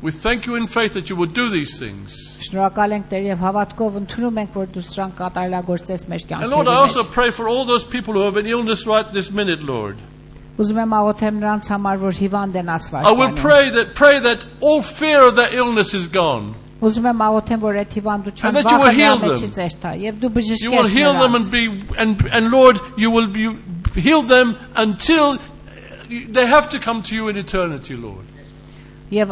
We thank you in faith that you will do these things. Շնորհակալ ենք Տեր եւ հավատքով ընդունում ենք որ դու սրանք կատարելագործես մեր And Lord, I also կյանքերում pray for all those people who have an illness right this minute, Lord. Ուզում եմ աղոթեմ նրանց համար որ հիվանդ են I will ասվարճանում pray that all fear of their illness is gone. Ուզում եմ աղոթեմ որ այդ And հիվանդության that you will վախը heal նրա them. մեջից էշտա եւ դու You will բժշկես heal them նրանց and Lord, you will heal them until they have to come to you in eternity, Lord. եւ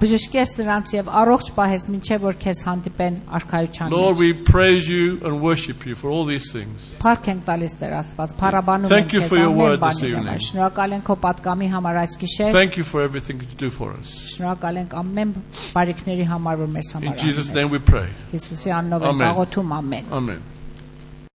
բժշկես նրանց եւ առողջ պահես մինչեւ որ քեզ հանդիպեն արքայության Lord, մեջ we praise you and worship you for all these things. Փառք ենք տալիս Տեր Աստված փառաբանում Thank ենք you քեզ for your ամեն word this բանի evening. համար շնորհակալ ենք քո պատկամի համար այս գիշեր Thank you for everything that you do for us. շնորհակալ ենք ամեն բարիքների համար որ մեզ In համար Jesus' name անում ես we pray. Հիսուսի անունով ենք Amen. աղոթում ամեն Amen.